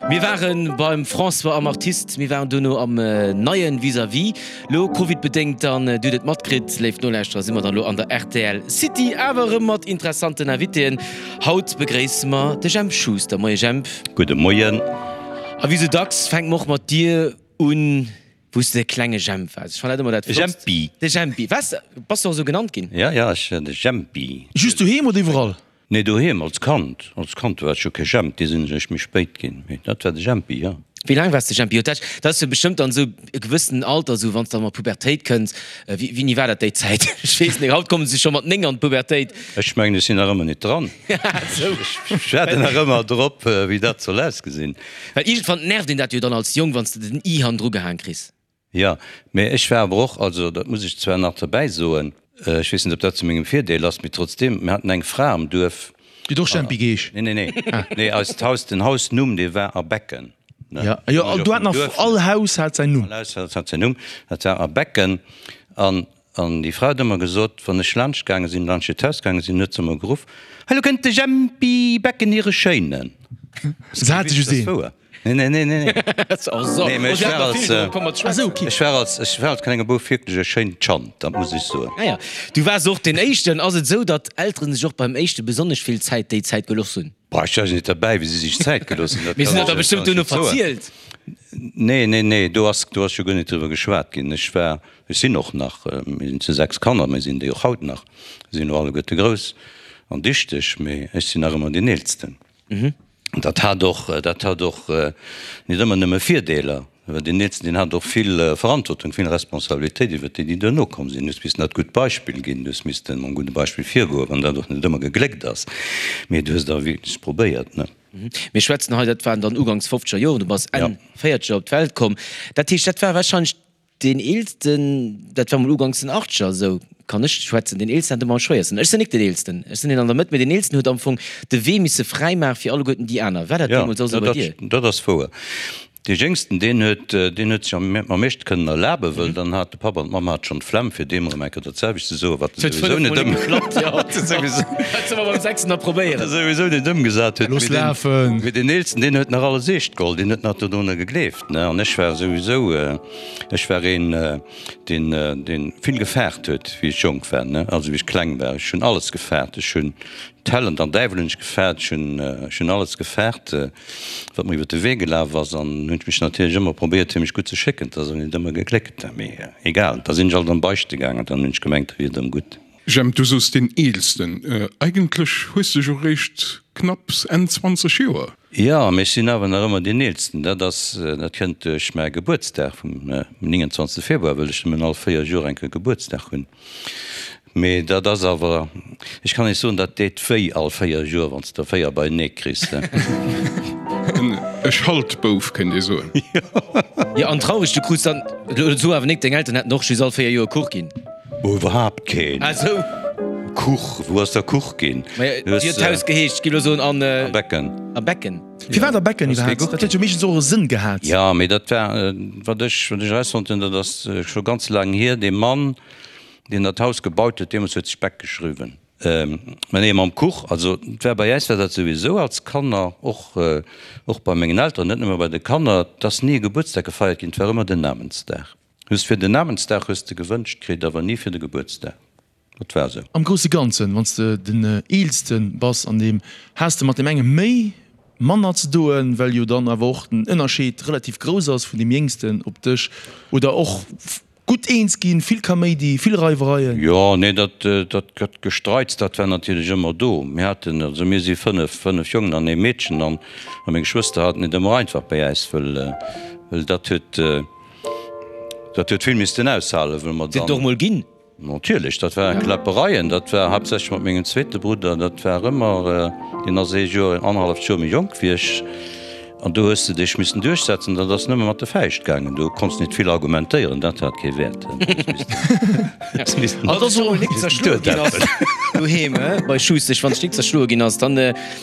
Mir waren beim François am Artist, mir waren dono am neien Vis-à-vis. Lo Covid-bedéngt, an Dir hutt et matkritt, léif Nolauschterer, si mer dann lo an der rtl City, awer erëm mat interessanten Invitéen. Haut begréisse mer de Jemp Schuster. Moie Jemp. Gudde Moien. A wéi sou dacks fänke mer och mat dir un, wou s de de klenge Jemp waars. Ech fannen dat ëmmer dat De Flottst. Jempi. De Jempi. Waars, bass de och esou genannt ginn? Ja, ja, ech war de Jempi. Just doheem oder iwwerall? Nee, doheem als Kand. Als Kand war ech jo kee Jemp, dee sinn ech eréischt méi spéit ginn. Mee dat war de Jempi, jo. Wéi laang waars de Jempi? Jo, dat dat ass jo bestëmmt dann esou e gewëssenen Alter, esou wann s de dann an d'Pubertéit kënns. Wéi, wéini war dat déi Zäit? Ech weess net, haut komme se scho mat 9 an d'Pubertéit. Ech mengen, ech sinn nach ëmmer net dran. Esou. Ech waarden nach ëmmer drop, wéi dat soll ausgesinn. Well iergendwann nervt een dat jo dann als Jong, wann s de den i hannendru gehaang kriss. Jo, mee ech war awer och, also dat muss ech zwar nach derbäi soen, ech weess net, ob dat zu mengem Virdeel ass, mee trotzdeem, mir haten eng Fra am Duerf. Déi huet och Jempi geheesch? Nee, nee, nee, nee, eist Haus, den Hausnumm, dee war A Becken, ne? Jo, jo, do hat nach all Haus hat säin Numm. All Haus hat säin Numm, dat war A Becken. An, an déi Fra huet ëmmer gesot, wann ech laanscht gaange sinn, laanscht hiert Haus gaange sinn, huet se ëmmer geruff, Hei, lo kënnt de Jempi Becken, hire Schéinen. Se hat just een. Nee, nee, nee, nee. Nee, mee ech war als, ech war als, ech war als klenge Bouf wierklech e schéint Chand, dat muss ech soen. Ah ja, du waars och deen Éischten. Ass et esou, datt Elteren sech och beim Éischte besonnesch vill Zäit déi Zäit gelooss hunn? Boah, ech war jo net derbäi, wéi si sech Zäit gelooss hunn, dat Mee kann si hunn ech der bestëmmt kann ech duerno net soen. verzielt. Nee, nee, nee, do ass, do ass jo guer net driwwer geschwat ginn. Ech war, ech sinn och nach, mir sinn zu 6 Kanner, mir sinn déi och haut nach, sinn elo alleguerte grouss an dichteg, mee ech sinn nach ëmmer deen Eelsten. Dat hat och, dat hat och net ëmmer nëmme Virdeeler, well deen Eelsten, deen hat och vill Verantwortung, vill Responsabilitéit iwwert déi, déi duerno komm sinn. Du hues missen dat gutt Beispill ginn, du hues missten mam gudde Beispill virgoen, wann dat och net ëmmer gegléckt ass, mee du hues et awer wierklech probéiert, ne? Mir schwätzen hei, dat waren dann uganks fofzeger Joren, du bass Enn véierzeger op d'Welt komm, dat heescht, dat war wahrscheinlech Deen eelsten, dat war mol uganks den Achtzeger, esou kann ech schwätzen, deen eelsten hat ëmmer am schwéiersten. Ech sinn nik deen eelsten, ech sinn deen an der Mëtt, mee deen eelsten huet am Fong de Wee misse fräi maache fir alleguerten déi aner. War dat Jo, deemools och esou bei dir? dat ass wouer. Dee Jéngsten, deen huet, deen huet sech am am meeschte kënnen erlaben, wëll dann hat de Papp an d'Mamm hate schonn d'Flemm, fir deem erëm eng Kéier dat selwecht ze soen, wat e Et huet souwisou fënnef net mol ëm, nik geklappt, jo. wat e souwisou, Dat solle mer beim sechsten da wat e probéieren. souwisou net ëmgesat huet. Looss Mee deen, lafen! mee deen eelsten, deen huet nach alles eescht geholl, deen huet nach dodrunner gegleeft. An ech war souwisou, ech war een, deen, deen vill gefaart huet, wéi ech jonk war, also wéi ech kleng war. Ech hunn alles gefaart. Ech hunn d'Häll an den Däiwel hunn ech gefaart. Ech hunn, ech hunn alles gefaart, wat mer iwwer de Wee gelaf ass. An hunn ech mech natierlech ëmmer probéiert, fir mech gutt ze schécken. Dat ass awer net ëmmer gegléckt, mee egal. Da sinn ech alt am Beichte gaangen, dann hunn ech gemengt, da wier et erëm gutt. Jemp, du soos deen Eelsten. Eigentlech hues de jo réischt knapps Enn 20 Joer. Jo, mee ech sinn awer nach ëmmer deen Eelsten. Dat ass, dat kënnt duerch mäi Gebuertsdag vum 29. Februar, wëll ech nëmmen all 4 Joer eng Kéier Gebuertsdag hunn. Mee dat ass awer, ech kann Iech soen, dat deet wéi all 4 Joer, wann s de der 4 beienee kriss. En Schaltbouf, kéint ee soen. Jo, an traureg, du krus dann, so awer nik, deng Elteren hätten och just all 4 Joer Kuch ginn. Oh, iwwerhaapt keen. Ah sou. Kuch, wou ass da Kuch ginn? Maja, wéi huet d'Haus geheescht? Gi lo soen an. A Becken. A Becken. Firwat a Becken iwwerhaapt? Dat huet jo meeschtens och e Sënn gehat. Jo, mee dat war, wat ech, wat ech erausfonnt hunn, dat ass scho ganz laang hier, dee Mann, deen dat Haus gebaut huet, deemools huet sech Beck geschriwwen. Mä nee, mam Kuch, also et war bei äis war dat souwisou als Kanner, och, och bei mengen Elteren, net nëmme bei de Kanner, et ass ni e Gebuertsdag gefeiert ginn, et war ëmmer den Namensdag. Just fir den Namensdag hues de gewënscht kritt, awer ni fir de Gebuertsdag. Dat war esou. Am grousse Ganzen, wann s de den Eelste bass an deem, has de mat deem enge méi, manner ze doen, well jo dann awer och den Ënnerscheed relativ grouss ass vun deem Jéngsten op dech, oder och gutt eens ginn, vill Kaméidi, vill Reiwereien? Jo, nee, dat, dat Gestreits, dat war natierlech ëmmer do. Mir haten, also mir si fënnef, fënnef Jongen an ee Meedchen, an meng Geschwëster haten et ëmmer einfach bei äis, wëll, wëll dat huet, Dat huet vill missten aushalen, wëll mer Sinn dann. et och mol ginn. Natierlech, dat waren Kläppereien. Dat war haaptsächlech mat mengem zweete Brudder. Dat war ëmmer, deen ass ee Joer, annerhalleft Joer méi jonk wéi ech. An do hues de dech missen duerchsetzen. Dat ass nëmme mat de Fäischt gaangen. Do konns net vill argumentéieren, dat hat kee Wäert. Du hues missen, Wann s du mol nik zerschloe ginn ass doheem, bei Schustesch, wann s nik zerschloe ginn ass, dann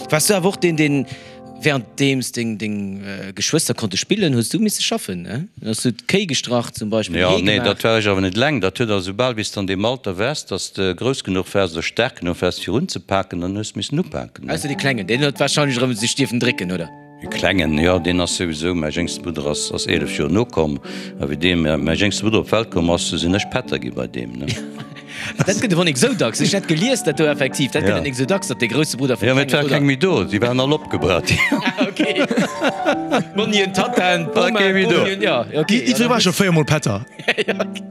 waars du awer och deen, deen. Währenddeems deng deng Geschwëster konnte spillen, hues du misse schaffen, ne? Hues du d'Kéi gestrach zum Beispill, Jo, Hee nee, gemaach? dat war ech awer net eleng. Dat huet also soubal wéi s de an deem Alter waars, dass de grouss genuch waars oder staark genuch waars fir unzepaken, dann hues de missen upaken, ne? Ausser dee Klengen, deen huet wahrscheinlech erëm sech dierfen drécken, oder? Dee Klengen, jo, deen ass souwisou, mäi jéngste Brudder ass, ass 11 Joer nokomm. A wéi dee, mäi jéngste Brudder op d'Welt komm ass, du sinn ech Pätter gi bei deem, ne. Dat gëtt awer nik esou dacks. Ech hat gelies, dat do effektiv, dat gëtt et nik esou dacks, datt dee grousse Brudder vum klenge Brudder. Jo, mee et war keng méi do, déi waren all opgebraucht. Ah, ok. D'Monnien, d'Tattaen, d'Bomaen, d'Bomien, jo, ok. Jiddweree war scho véiermol Pätter.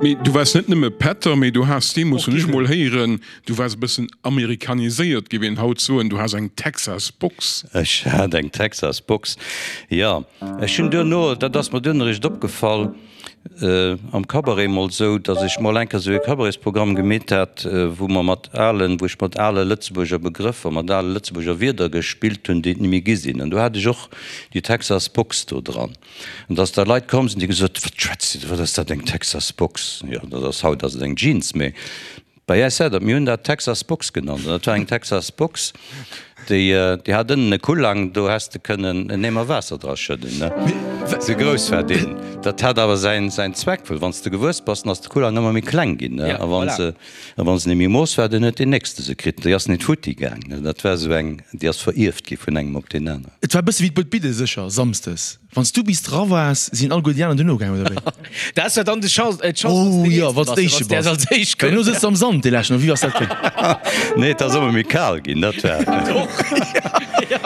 Mee du waars net nëmme Pätter, mee du has deemools, hunn ech emol héieren, Du waars e bëssen amerikaniséiert, géif een haut soen. Du has eng Texas Box. Ech hat eng Texas Box, jo. Ech hunn duerno, dat ass mer duerno eréischt opgefall, am Cabaret mol sou, datt ech mol eng Kéier sou e Cabaretsprogramm gemeet hat, wou mer mat alen, wou ech mat ale Lëtzebuerger Begrëffer, mat ale Lëtzebuerger Wierder gespillt hunn, déi et ni méi gi sinn. An do hat ech och déi Texas Box do dran. An datt da Leit komm sinn, déi gesot hunn, Wat schwätzt Dir do, wat ass dat, eng Texas Box? Jo, dat ass, haut ass et eng Jeans, mee Bei äis war dat, mir hunn dat Texas Box genannt, an dat war eng Texas Box, déi, déi hat ënnen e Kullang, do häss de kënnen en Eemer Waasser dra schëdden, ne? Sou grouss war deen. Dat hat awer säin, säin Zweck, well wann s de gewuess bass, dann ass de Kullang ëmmer méi kleng ginn, ne? A wann se, a wann se net méi mooss war, dann huet deen nächste se kritt. Déi ass net futti gaang, ne? Dat war esou eng, déi ass verierft gi vun engem op deen aneren. Et war e bësse wéi d'Buedbidde sécher, samsdes. Wann s du bis dra waars, sinn alleguer déi aner duerno gaangen, oder wéi? Dat war dann de Chance, äh, d'Chance, Oh jo, wann s de Éischte bass. Als Éischt Well elo sëtz de am Sand, dee leschten, oder wéi ass dat ginn? Nee, et ass ëmmer méi kal ginn, dat war.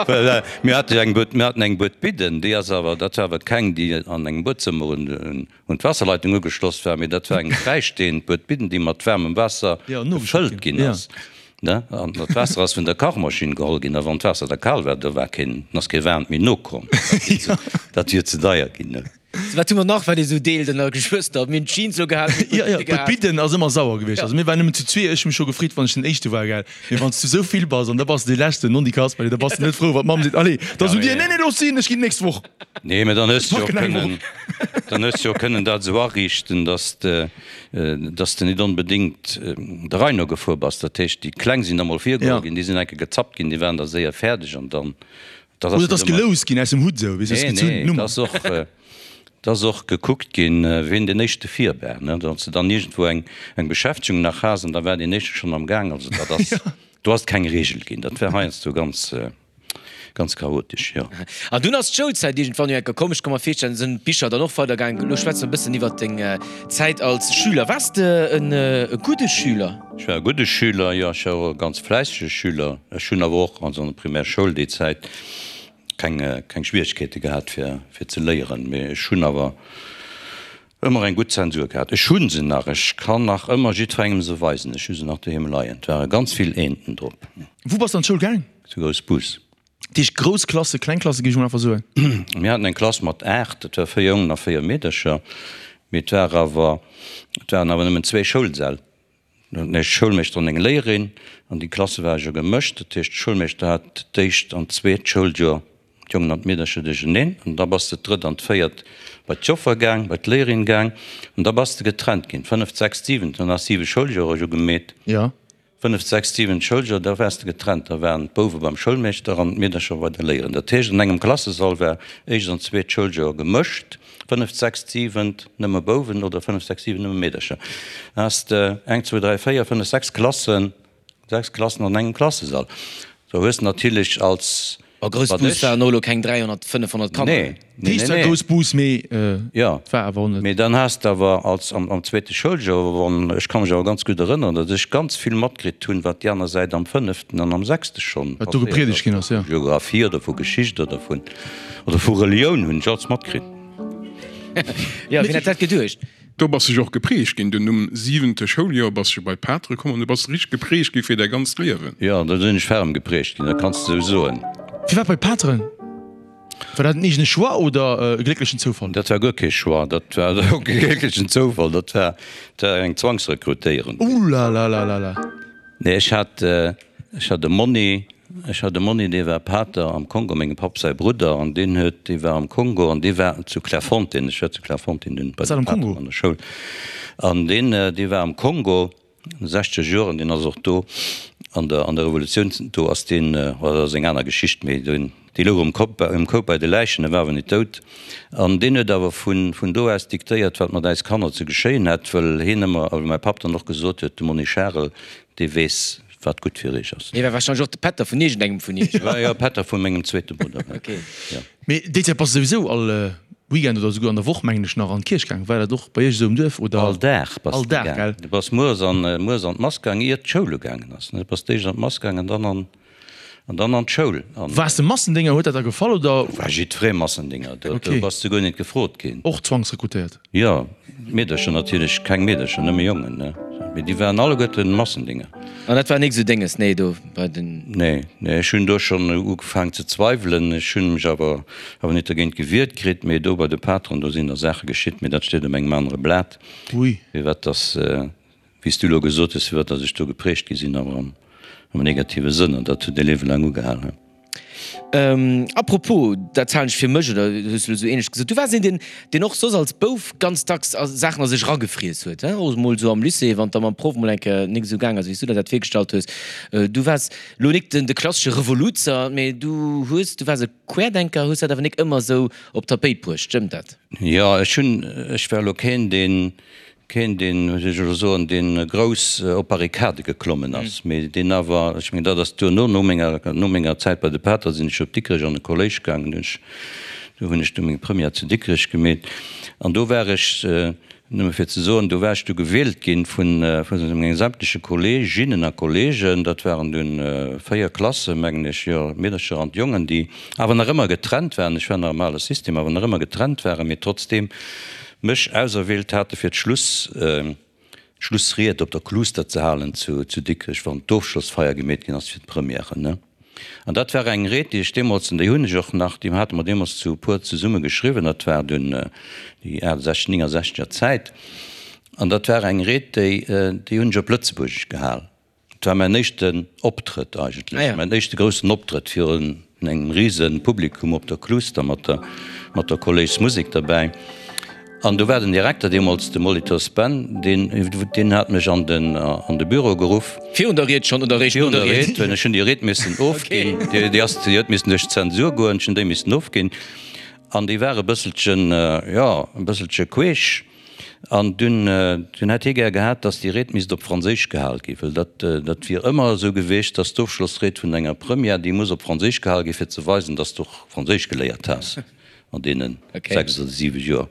Well mir hate jo eng Bued, mir haten eng Bued Bidden, déi ass awer, dat war awer keng, déi an engem Buedzëmmer un, un d'Waasserleitung ugeschloss war, mee dat war eng fräistehend Bued Bidden, déi mat waarmem Waasser gefëllt ginn ass. Ne? An dat Waasser ass vun der Kachmaschinn geholl ginn, a wann d'Waasser da kal war, do war keen, ass kee waarmt méi nokomm. Dat wier ze deier ginn, ne? Sou, wat hu mer nach, wat ee sou deelt ënner Geschwëster? Mir hunn d'Jeans lo gehat, mir hunn Jo, jo, d'Bidde gehat. D'Bidden ass ëmmer sauer gewiescht. Also mir waren nëmmen zu zwee, ech hu mech scho gefreet, wann ech den Éischte war, gell. Mee wann s du sou vill bass an da bass de dee Leschten, non, déi Kasperle, da bass de net frou, wann d'Mamm seet, Allez, da sot dir, Nee, nee, looss sinn, ech ginn d'nächst Woch. Nee, mä dann hues de jo Packen eng kënnen, Woch. dann hues de jo kënnen dat esou ariichten, dass de, dass de net onbedéngt der Rei no gefuer bass. Dat heescht, déi Kleng sinn da mol virgeholl ginn, déi sinn eng Kéier gezappt ginn, déi waren da séier fäerdeg an dann, dat ass Oder et ass geloust ginn aus dem Hutt esou, weess de, Nee, nee, et ass och, et ass och gekuckt ginn, wien deen éischte vir war, ne, datt s de dann iergendwou eng, eng Beschäftegung nach has an da war deen éischte schonn am Gaang. Also dat ass, do ass et keng Reegel ginn. Dat war heiansdo ganz. Ganz chaotesch, jo. An dunn ass d'Schoulzäit iergendwann jo enker komm. Ech ka mer virstellen, sinn d'Bicher dann och weidergaangen. Elo schwätze mer e bëssen iwwert deng Zäit als Schüler. Waars de en gudde Schüler? Ech war e gudde Schüler, jo. Ech war och e ganz fläissege Schüler. Ech hunn awer och, also an der Primärschoul déi Zäit, keng, keng Schwieregkeete gehat fir, fir ze léieren. Mee ech hunn awer ëmmer eng gutt Zensur gehat. Ech hu se nach, ech kann nach ëmmer jiddwerengem se weisen. Ech hu se nach doheem leien. Et ware ganz vill Eenten drop. Wou bass de an d'Schoul gaang? Zu Groussbus. Dat heescht grouss Klasse, kleng Klasse géif ech mol einfach soen. Mir haten eng Klass mat 8, dat war 4 Jongen a 4 Meedercher, mee et war awer, et waren awer nëmmen zwee Schoulsäll. E Schoulmeeschter an eng Léierin an déi Klasse ware jo gemëscht. Dat heescht, de Schoulmeeschter hat d'éischt an d'zweet Schouljoer d'Jongen an d'Meedercher duercheneen an da bass de d'drëtt an d'véiert bei d'Joffer gaang, bei d'Léierin gaang an da bass de getrennt ginn, d'fënneft, sechst, siwent, dann has siwe Schouljoer jo gemeet. Fënneft, sechst, siwent Schouljoer, da waars de getrennt. Da waren d'Bouwe beim Schoulmeeschter an d'Meedercher bei der Léierin. Dat heescht, an engem Klassesall war éischt an zweet Schouljoer gemëscht, fënneft, sechst, siwent nëmme Bouwen oder fënneft, sechst, siwent nëmme Meedercher. Da has de eng, zwou, dräi, véier, fënnef, sechs Klassen, sechs Klassen an engem Klassesall. Do hues de natierlech als. A Groussbus waren och elo keng 300, 500 Kanner. Nee, nee, nee, nee. Groussbus, mee et war awer och net. Mee dann has de awer als am zweete Schouljoer, wann, ech ka mech awer ganz gutt erënneren, datt ech ganz vill matkritt hunn, wat déi aner Säit am fënneften an am sechste schonn Wat do gepriedegt ginn ass, jo. Vu Geographie oder vu Geschicht oder vun, oder vu Relioun hunn ech alles matkritt. Jo, wien hätt dat geduecht? Do bass de jo och geprägt ginn. Dunn um siwente Schouljoer bass de bei d'Patere komm an du bass richteg geprägt gi fir däi ganzt Liewen. Jo, do sinn ech ferm geprägt ginn, dat kanns de sou soen. Firwat bei d'Pateren? War dat en eegene Choix oder e glécklechen Zoufall? Dat war guer kee Choix, dat war och kee glécklechen Zoufall, dat war eng Zwangsrekrutéierung. Oulalalalala. Nee, ech hat, ech hat e Monni, ech hat e Monni, dee war Pater am Kongo, mengem Papp säi Brudder, an deen huet, dee war am Kongo an dee war zu Clairefontaine, ech war zu Clairefontaine dunn bei Ass dat de am Pateren Kongo? an der Schoul, an deen, dee war am Kongo an de sechzeger Joren, deen ass och do an der, an der Revolutioun, do ass deen, oh dat ass eng aner Geschicht, mee deen, Dee louch um Kop, um Koup bei de Läichen, e war awer nit dout. An deen huet awer vun, vun do aus diktéiert, wat mat äis Kanner ze geschéien hätt, wëll hien ëmmer, a wéi mäi Papp dann och gesot huet, de Monni Charel, dee weess, wat gutt fir iech ass. Hie war warscheinlech och de Pätter vun iergendengem vun iech. War jo Pätter vu mengem zweete Brudder, jo. Mee déi Zäit bass de souwisou all Weekend oder souguer an der Woch, mengen ech, nach an d'Kierch gaang. War dat och bei iech esou um Duerf, oder? All Dag bass de gaang. Du bass mueres an, mueres an d'Mass gaang, iert d'Schoul ugaangen ass. Du bass d'éischt an d'Mass gaang an dann an, an dann an d'Schoul. An. Waars de Massendénger? Huet dat der gefall, oder? Do war jiddweree Massendénger. Do, do bass de guer net gefrot ginn. Och zwangsrekrutéiert? Jo, Meedercher natierlech, keng Meedercher, nëmme Jongen, ne? Mee déi waren alleguerten Massendinger. An dat war nik sou Dénges, nee, do bei den. Nee, nee, ech hunn do schonn ugefaang ze zweiwelen. Ech hunn mech awer awer net dergéint gewiert kritt. Mee do bei de Pateren, do sinn da Saache geschitt, mee dat steet op engem anere Blat. Ui. Firwat dass, wéi s du elo gesot hues, firwat dass ech do geprägt gi sinn, awer am am negative Sënn. An dat huet e Liewe laang ugehal. A propos, dat halen ech fir mech, oder hues du elo esou ähnlech gesot, du waars een, deen, deen och soss als Bouf ganz dacks Saachen a sech eragefriess huet, he, och emol esou am Lycée, wann et da mam Proff emol eng Kéier nik esou gaang ass, wéi s du der dat virgestallt hues. Du waars elo nik den, de klassesche Revoluzer, mee du hues, du waars e Querdenker, hues dat awer nik ëmmer esou op d'Tapéit bruecht, stëmmt dat? Jo, ech hunn, ech war elo keen, deen, Keen, deen, wéi soll ech elo soen, deen grouss op Barrikade geklommen ass, mee deen awer, ech mengen, dat ass duerno, no menger, no menger Zäit bei de Pater sinn ech op Dikrech an de Kolléisch gaangen, do hunn ech, do hunn ech du meng Première zu Dikrech gemeet an do war ech, nëmme fir ze soen, do war ech du gewielt ginn vun, vu menge sämtleche Kolleeginnen a Kolleegen, dat waren dunn 4 Klassen, mengen ech, jo, d'Meedercher an d'Jongen, déi awer nach ëmmer getrennt waren, ech war nach am ale System, awer nach ëmmer getrennt waren, mee trotzdeem mech auserwielt hate fir d'Schluss, d'Schlussried op der Kluster ze halen zu, zu Dikrech, wann d'Ofschlossfeier gemeet ginn ass fir d'Premièren, ne. An dat war eng Ried, déi ech deemools, an déi hunn ech och nach, déi hate mer deemools zu e puer zesumme geschriwwen, dat war dunn déi 68, 69 er Zäit, an dat war eng Ried, déi, déi hunn ech op Lëtzebuergesch gehal. Et war mäin éischten Optrëtt eigentlech, mäin éischte groussen Optrëtt virun engem rise Publikum op der Kluster mat der mat der Kolléismusek derbäi. An do war den Direkter deemools, de Molitor Ben, deen deen hat mech an den an de Büro geruff. Virun der Ried schonn oder eréischt no der Ried? Virun der Ried, ech hunn déi Ried missen ofginn. Déi ass déi huet missen duerch d'Zensur goen, ech hunn déi missen ofginn. An déi war e bësselchen, jo, e bësselche queesch. An dunn, dunn hätt hie gär gehat, datt déi Ried misst op Franséisch gehal ginn, well dat, dat wier ëmmer esou gewiescht, datt d'Ofschlossried vun enger Première, déi muss op Franséisch gehal ginn, fir ze weisen, datt s de och Franséisch geléiert has an deene 6 oder 7 Joer.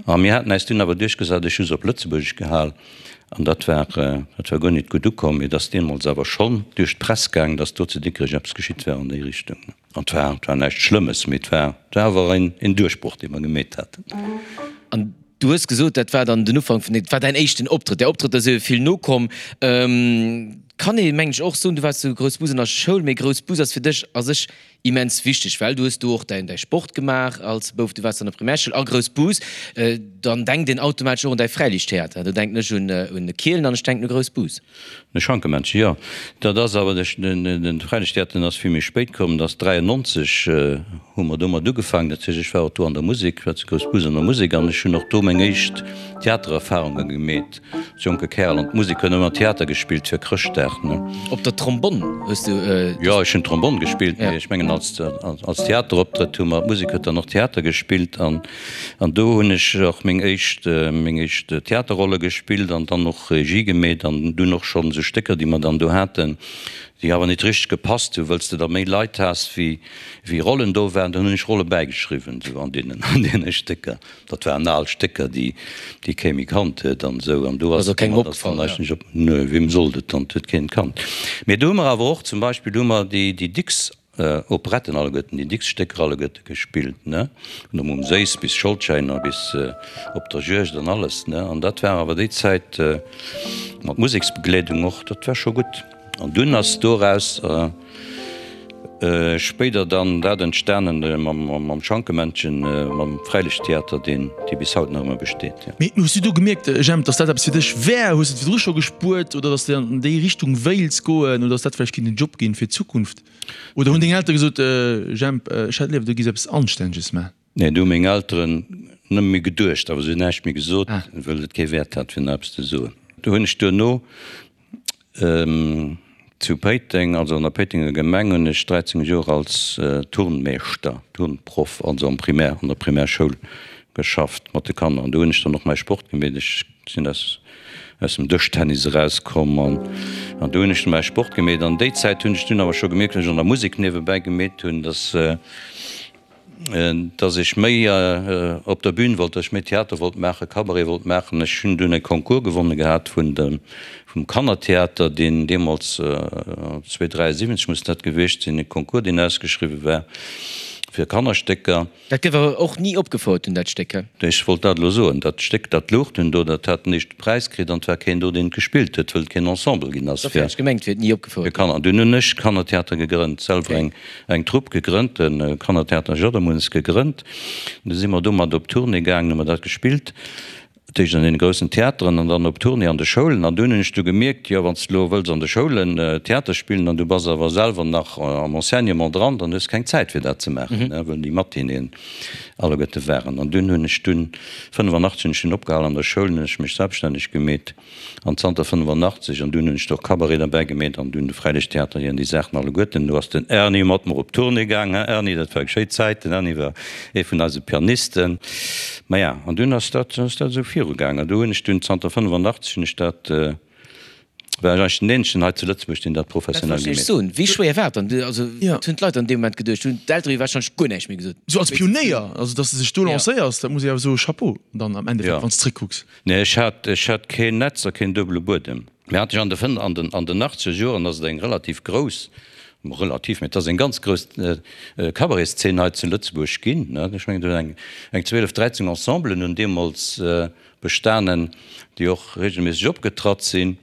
A mir haten äis dunn awer duerchgesat, ech hu se op Lëtzebuergesch gehal, an dat war, dat war guer nit gutt ukomm. Mee et ass deemools awer schonn duerch d'Press gaang, datt do zu Dikrech eppes geschitt war an déi Richtung. An 't war, 't war näischt Schlëmmes, mee 't war, 't war awer een, een Duerchbroch, dee mer gemeet haten. An du hues gesot, dat war dann den Ufank vun, dat war däin éischten Optrëtt. Där Optrëtter si jo vill nokomm. Kann ee mengen ech och soen, du waars zu Groussbus an der Schoul, mee Groussbus ass fir dech a sech immens wichteg, well du hues do och däin, däi Sport gemaach als Bouf, du waars an der Primärschoul a Groussbus. Dann denkt een automatesch och un däi Fräiliichttheater. Do denken ech un, un Kielen an ech denken u Groussbus. De Schankemännchen, jo. Dat ass awer, de Fräilichttheater, den ass vill méi spéit komm, dat ass 93 hu mer domat ugefaangen. Dat heescht, ech war och do an der Musek, war zu Groussbus an der Musek an ech hunn och do meng éischt Theatererfarunge gemeet als jonke Kerl. An d'Musek huet ëmmer Theater gespillt fir Chrëschtdag, ne. Op der Trombonn hues du? Jo, ech hunn Trombonn gespillt, mee ech mengen als, als Theateroptrëtt hu mer, d'Musek huet dann och Theater gespillt an, an do hunn ech och meng éischt, meng éischt Theaterrolle gespillt an dann och Regie gemeet an dunn och schonn esou Stécker, déi mer dann do haten, déi awer nit richteg gepasst hu wëlls de da méi Leit has wéi wéi Rollen do waren, dann hunn ech Rolle bäigeschriwwen esou an deenen an deene Stécker. Dat waren al Stécker, déi déi kee méi kannt huet an esou an do ass et kengem opgefall, ja. Nö, weem sollt et dann, et huet keen kannt. Mee do hu mer awer och zum Beispill hu mer déi déi Dicks Operetten alleguerten, déi dickst Stécker alleguerte gespillt, ne, vun der Mumm Séiss bis Scholdschäiner bis Op der Juegd an alles, ne. An dat war awer déi Zäit mat Museksbegleedung och, dat war scho gutt. An dunn ass doraus spéider dann dat entstanen mam Schankemännchen, mam Fräilichttheater, deen, dee bis haut nach ëmmer besteet, jo. Mee hues du do gemierkt, Jemp, dass dat eppes fir dech wär? Hues de et virdru scho gespuert oder dass de an déi Richtung wéilts goen oder dass dat vläicht kinnt en Job ginn fir d'Zukunft? Oder hunn deng Eltere gesot, Jemp, ech hätt léiwer, du giss eppes Anstänneges man? Nee, do hu meng Elteren nëmme méi geduecht, awer se hunn näischt méi gesot, wëll et kee Wäert hat, fir nach eppes ze soen. Do hunn ech duerno zu Péiteng, also an der Péitenger Gemeng, hunn ech 13 Joer als Turnmeeschter, Turnproff, also am Primär, an der Primärschoul geschafft mat de Kanner. An do hunn ech dann och mäi Sport gemeet. Ech sinn aus. Aus dem Dëschtennis erauskomm an an do hunn ech du mäi Sport gemeet. An déi Zäit hunn ech dunn awer scho gemierkt, wéi ech an der Musek niewebäi gemeet hunn, dass dass ech méi op der Bühn wollt, dass ech méi Theater wollt maachen, Cabaret wollt maachen. Ech hunn dunn e Concours gewonne gehat vun dem vum Kannertheater, deen deemools, 1973 muss dat gewiescht sinn, e Concours deen ausgeschriwwe war fir Kannerstécker. Dat gouf awer och ni opgefouert dunn, dat Stéck, he? Ech wollt dat elo soen. Dat Stéck, dat louch dunn do, dat hat den éischte Präis kritt an et war keen do, deen et gespillt huet, wëll et keen Ensemble ginn ass Dofir fir hat ech gemengt, wier et ni opgefouert ginn. Kanner. An dunn hunn ech Kannertheater gegrënnt, selwer eng, eng Trupp gegrënnt, de Kannertheater Jaddermunns gegrënnt. Du si mer domat op Tournée gaangen, hu mer dat gespillt. Dat éischt an deene groussen Theateren an dann op Tournée an de Schoulen. An dunn hunn ech du gemierkt, jo, wann s de elo wëlls an de Schoulen Theater spillen an du bass awer selwer nach am Enseignement dran, dann hues de keng Zäit fir dat ze maachen, wëll déi Matinéeën alleguerte waren. An dunn hunn ech dunn, 85 hunn ech dunn opgehal an der Schoul, hunn ech mech selbststänneg gemeet. An zanter 85, an dunn hunn ech do och Cabaret derbäi gemeet an dunn de Fräilichttheater hier an déi Saachen alleguerten. Do ass den Erny mat mer op Tournée gaang, hein Erny, dat war eng schéi Zäit. Den Erny war ee vun eise Pianisten. Maja, an dunn ass dat, ass dat esou virugaang. An do hunn ech dunn, zanter 85 hunn ech dat, war ech eigentlech den eenzegen hei zu Lëtzebuerg, deen dat Dat professionell wollt ech gemeet huet. soen. Wéi schwéier war et dann? Also, wat hunn d'Leit an deem Moment geduecht? Hunn d'Eltere jo warscheinlech guer näischt méi gesot? Esou als Pionéier, also datt s de sech do lancéiers, dat muss ee awer soen, Chapeau dann am Endeffekt, wann s de zréckkucks. Nee, ech hat, ech hat keen Netz a keen duebele Buedem. Mir hat ech an de fënn, an den, an den achtzeger Joren ass et eng relativ grouss, relativ, mee et ass eng ganz grouss Cabaretszeen hei zu Lëtzebuerg ginn, ne. Ech mengen, do hunn eng, eng 12, 13 Ensemblen hunn deemools bestanen, déi och regelméisseg opgetratt sinn.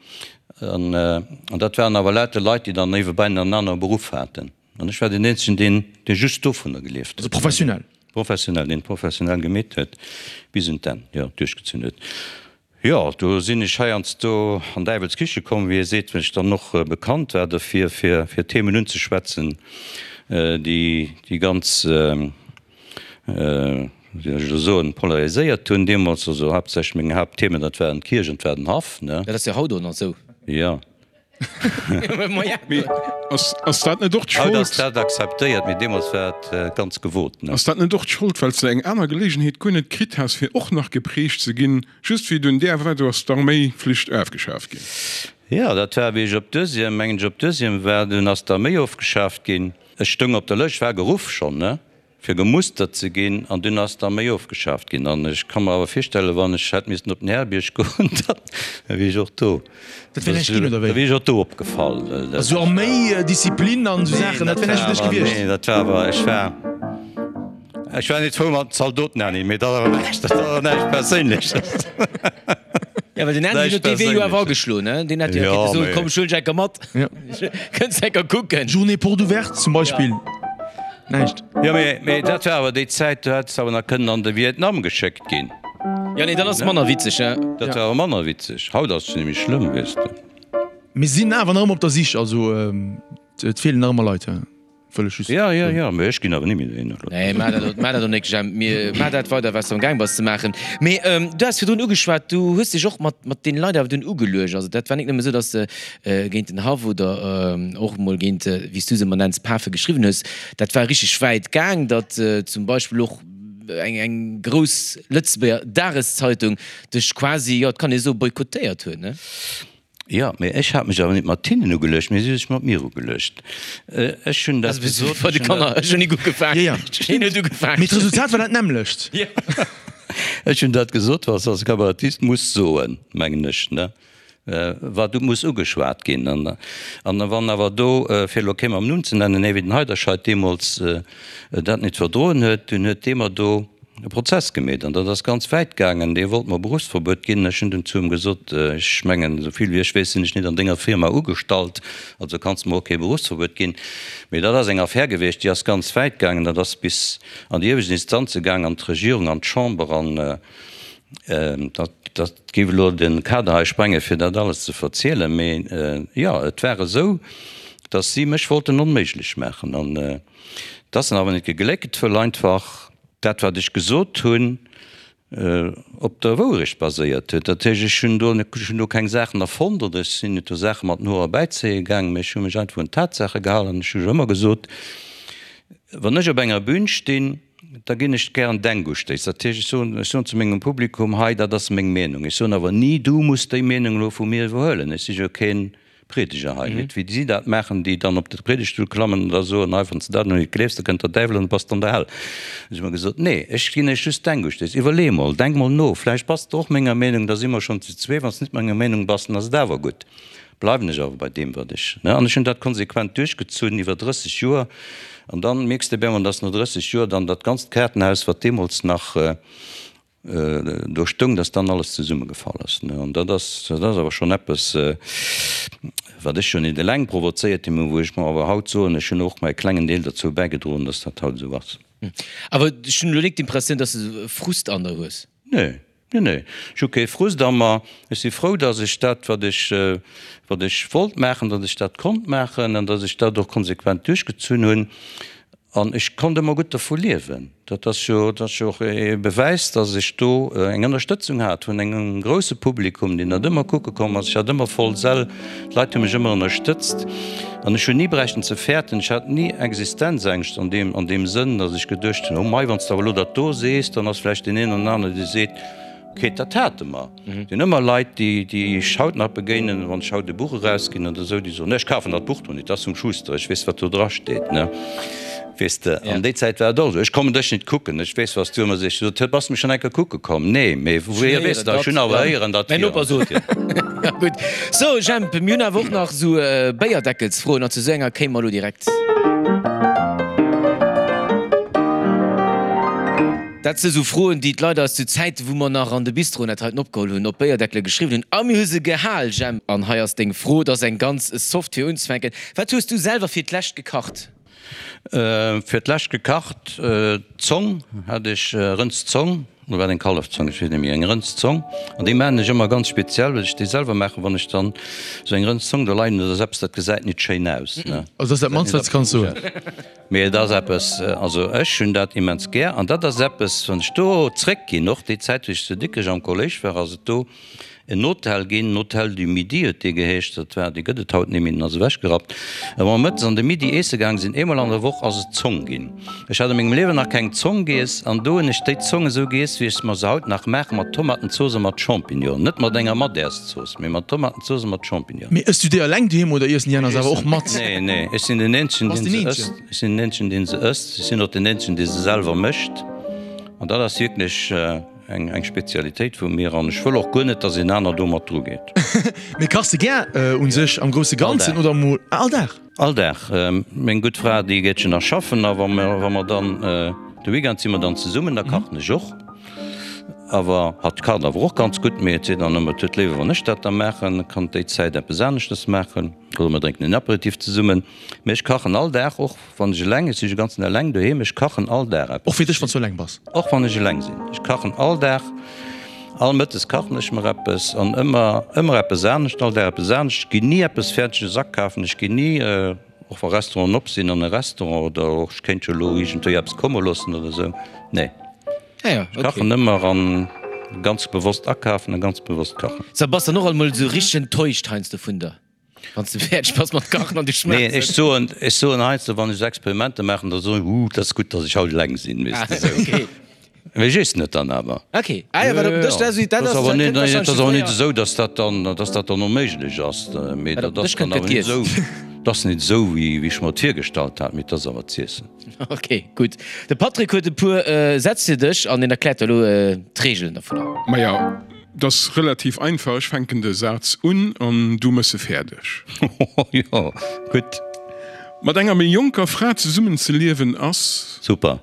An, an dat waren awer lauter Leit, déi dann niewebäi nach en anere Beruff haten. An ech war deen eenzegen, deen, dee just dovunner gelieft huet. Also professionell? Professionell, deen et professionell gemeet huet, bis un d'Enn, jo, duerchgezunn huet. Jo, do sinn ech heiansdo an Däiwels Kiche komm, wéi ee seet, well ech dann och bekannt war derfir, fir, fir Themen unzeschwätzen, déi, déi ganz, wéi soll ech elo soen, polariséiert hunn deemools. Also haaptsächlech meng Haaptthemen, dat waren d'Kierch an 't war den Haff, ne? Dat ass jo haut och nach esou. Jo. Mee ass dat net och d'Schold? Haut ass dat akzeptéiert, mee deemools war et ganz gewot. Ass dat net och d'Schold, well s de eng aner Geleegenheet guer net kritt has, fir och nach geprägt ze ginn, just wéi dunn där war, do ass d'Arméiflicht afgeschaaft ginn? Jo, dat war wéi ech op Deuxième, mengen ech, op Deuxième war, dunn ass d'Arméi ofgeschaaft ginn. Ech stoung op der Lëscht, war geruff schonn, ne? fir gemustert ze ginn, an dunn ass d'Arméi ofgeschaaft ginn. An ech ka mer awer virstellen, wann ech hätt missen op den Härebierg goen, da wier ech och do, Dat wär näischt ginn, oder wéi? da wier ech och do opgefall. Also Arméi, Disziplin an esou Saachen, dat wär näischt fir dech gewiescht? Nee, dat war awer, ech war, ech war net frou mat den Zaldoten, Anni, mee dat awer näischt, dat ass awer näischt Perséinleches. Ja, well den Andy huet dee Wee jo awer ageschloen, ne? Deen hätt jo kéinte soen, komm, ech huelen dech enker mat, kënns enker kucken. Journée porte ouverte zum Beispill. Näischt. Jo, mee, mee dat war awer déi Zäit, do hätt s de awer nach kënnen an de Vietnam geschéckt ginn. Jo, nee, dann ass et manner witzeg, he? Dat war awer manner witzeg. Haut ass et nämlech schlëmm, weess de. Mir sinn awer nach ëmmer op der Sich, also et feelen nach ëmmer Leit, he? Wëll ech just Jo, jo, jo, mee ech ginn awer ni méi dohinner elo. Nee, maach dat, maach dat och nik, Jemp. Mir, maach dat weider, wat s de am Gaang bass ze maachen. Mee du has virdrun ugeschwat, du hues dech och mat, mat deene Leit awer dunn ugeluecht. Also dat war nik nëmme esou, datt s de géint den Haff oder och emol géint, wéi s du se ëmmer nenns, Pafe geschriwwen hues, dat war richteg wäit gaang, datt zum Beispill och eng eng grouss Lëtzebuerger Dageszeitung dech quasi, jo, et kann ee soe boykottéiert huet, ne? Jo, mee ech hat mech awer net mat hinnen ugeluecht, mee si hu sech mat mir ugeluecht. Ech hunn dat gesot. Bei de Kanner, ech hunn nik ugefaangen, hien huet ugefaangen. Mee d'Resultat war dat nämmlecht. Ech hunn dat gesot, wat s als Kabarettist muss soen, mengen ech, ne? Wat muss ugeschwat ginn. An wann awer do, fir elo kee mam Numm ze nennen, ee wéi den Heiderscheid deemools dat net verdroen huet, dunn huet dee mer do e Prozess gemeet. An dat ass ganz wäit gaangen. Dee wollt mer Beruffsverbuet ginn. Ech hunn dunn zu em gesot, Ech mengen, esou vill wéi ech weess, sinn ech net an denger Firma ugestallt, also kanns de mer och kee Beruffsverbuet ginn. Mee dat ass eng Affär gewiescht, déi ass ganz wäit gaangen. Dat ass bis an déi iewescht Instanze gaang, an d'Regierung, an d'Chamber. An Dat géif elo de Kader hei sprengen, fir dat alles ze verzielen. Mee jo, et war esou, datt si mech wollten onméiglech maachen. An et ass dann awer net gegléckt, wëll einfach dat, wat ech gesot hunn, op der Wourecht baséiert huet. Dat heescht, ech hunn do, ech hunn do keng Saachen erfonnt oder ech sinn net do Saache mat den Hoer erbäizéie gaangen, mee ech hu mech einfach un d'Tatsaache gehalen. An ech hu jo ëmmer gesot, wann ech op enger Bühn stinn. Da ginn ech gären Denkustéiss. Dat heescht, ech soen, ech soen zu mengem Publikum, hei, dat ass meng Meenung. Ech soen awer ni, du muss déi Meenung elo vu mir iwwerhuelen. Ech si jo kee Priedeger hei. Net wéi si dat maachen, déi dann op de Priedegstull klammen an da soen, hei, wann s de dat elo net gleefs, da kënnt der Däiwel an du bass an der Hell. Hu si mer gesot, nee, ech ginn iech just Denkustéiss. Iwwerlee mol, denk mol no, vläicht bass de och menger Meenung, da si mer schonn zu zwee. Wann s de net menger Meenung bass, dann ass et awer gutt. Bleiwen ech awer bei deem, wat ech, ne? An ech hunn dat konsequent duerchgezunn iwwer 30 Joer. An dann mierks de op eemol, dass no 30 Joer dann dat ganzt Kaartenhaus, wat deemools nach do stoung, dass dann alles zesummegefall ass, ne? An dat ass, dat ass awer schonn eppes, wat ech jo net eleng provozéiert hunn, mä wou ech mer awer haut soen, ech hunn och mäi klengen Deel derzou bäigedroen, dass dat haut esou ass. Awer ech hunn elo nik d'Impressioun, dass de Frust an der hues. Nee, nee, nee, ech hu kee Frust a mer. Ech si frou, datt ech dat, wat ech, wat ech wollt maachen, datt ech dat konnt maachen an datt ech dat och konsequent duerchgezunn hunn. An ech konnt ëmmer gutt dervu liewen. Dat ass jo, dat ass jo och e Bewäis, datt ech do eng Ënnerstëtzung hat vun engem grousse Publikum, deen dat ëmmer kucke komm ass. Ech hat ëmmer voll Säll, d'Leit hu mech ëmmer ënnerstëtzt an ech hunn ni bräichten ze fäerten. Ech hat ni Existenzängscht an deem, an deem Sënn, datt ech geduecht hunn, oh mei, wann s de awer elo dat do sees, dann ass vläicht deen een oder anere, dee seet, Ok, dat hate mer. Et sinn ëmmer Leit, déi, déi ech haut nach begéinen, wann ech haut e Buch erausginn oder esou, déi soen, Nee, ech kafen dat Buch do net, dat ass vum Schuster, ech weess, wat do drasteet, ne? Weess de, an déi Zäit war et och esou, Ech kommen dech net kucken, ech weess, wat s du ëmmer sees. Ech sot, Bass de mech schonn eng Kéier kucke komm? Nee, mee wouhier weess de dat? Ech hunn awer héieren, datt Mäin Noper sot. Ja, gutt. So, Jemp, mir hunn awer och nach esou Béierdeckelsfroen an zu esou enger kéime mer elo direkt. Dat si sou Froen, déi d'Leit eis zu Zäiten, wou mer nach an de Bistroen dat heiten opgeholl hunn, op Béierdeckele geschriwwen hunn. A mir hu se gehal, Jemp. An hei ass deng Fro, et ass eng ganz soft fir unzefänken. Wat hues du selwer fir d'lescht gekacht? Fir d'lescht gekacht, Zong hat ech, Rëndszong, oder war et eng Kallefzong, ech weess net méi, eng Rëndszong. An déi maachen ech ëmmer ganz speziell, well ech déi selwer maachen. Wann ech dann esou eng Rëndszong do leien hunn, dat ass eppes, dat gesäit nit schéin aus, ne. Also dat ass dat mannst, wat s de kanns soen. Mee et ass eppes, also ech hunn dat immens gär an dat ass eppes, wann ech do zréckginn, och déi Zäit wéi ech zu Dikrech am Kolléisch war, ass et do en Hotel ginn, den Hotel du Midi huet dee geheescht, dat war, dee gëtt et haut net méi, deen ass ewechgerappt. A wa mer mëttes an de Midi eesse gaang sinn, eemol an der Woch, ass et Zong ginn. Ech hat a mengem Liewen nach keng Zong giess an do hunn ech déi Zong esou giess, wéi ech se mer se haut nach maachen, mat Tomatenzooss a mat Champignonen, net mat enger Madärszooss, mee mat Tomatenzooss a mat Champignonen. Mee ëss du déi eleng doheem oder iessen déi aner se awer och mat? Nee, nee, ech sinn den eenzegen, deen se ësst. Ech sinn den eenzegen, deen se ësst. Ech sinn och den eenzegen, dee se selwer mécht. An dat ass wierklech eng, eng Spezialitéit vu mir. An ech wëll och guer net, dass een aner do mat dru geet. Mee kachs de gär un sech am grousse Ganzen oder mol all Dag? All Dag. Meng gutt Fra, déi geet jo nach schaffen. A wa mer, wa mer dann de Weekend si mer dann zesummen, da kachen ech och. Awer hatt kacht awer och ganz gutt, mee et seet dann ëmmer, et huet léiwer wann ech dat da maachen, kann déi Zäit eppes aneschtes maachen oder mer drénken en Aperitif zesummen. Mee ech kachen all Dag, och wann ech eleng, ech si jo ganzen eleng doheem, ech kachen all Dag eppes. Och fir dech, wann s du eleng bass? Och wann ech eleng sinn, ech kachen all Dag, all Mëttes kachen ech mer eppes an ëmmer, ëmmer eppes anescht, all Dag eppes anescht. Ech ginn ni eppes Fäerdeges akafen, ech ginn ni, och wa Restauranten op sinn, an e Restaurant oder och ech kéint jo elo iergendwéi eppes komme loossen oder esou, nee. Ah ja, Ech kachen ëmmer an ganz bewosst akafen a ganz bewosst kachen. So, bass dann och alt mol esou richteg enttäuscht heiansdo vun der, wann s de fäerdeg bass mat kachen an du schmaachs Nee, ech soen, ech soen heiansdo, wann ech esou Experimenter maachen, da soen ech, Huh, dat ass gutt, datt ech haut eleng sinn, weess de esou. Okay. Mee ech iessen et dann awer. Okay. Ah ja, wat op den Dësch, dat ass, dat ass awer net, dat ass awer net esou, datt dat dann, datt dat dann onméiglech ass. Mee dat ass dann awer net esou, dat ass net esou, wéi ech mer et virgestallt hat, mee et ass awer z'iessen. Ok, gutt. De Patrick huet e puer Sätz fir dech an en erkläert der elo d'Reegelen dovunner. Maja, 't ass relativ einfach, ech fänken de Saz un an du mëss e fäerdeg. Jo, gutt. Mat enger méi jonker Fra zesummen ze liewen ass. Super.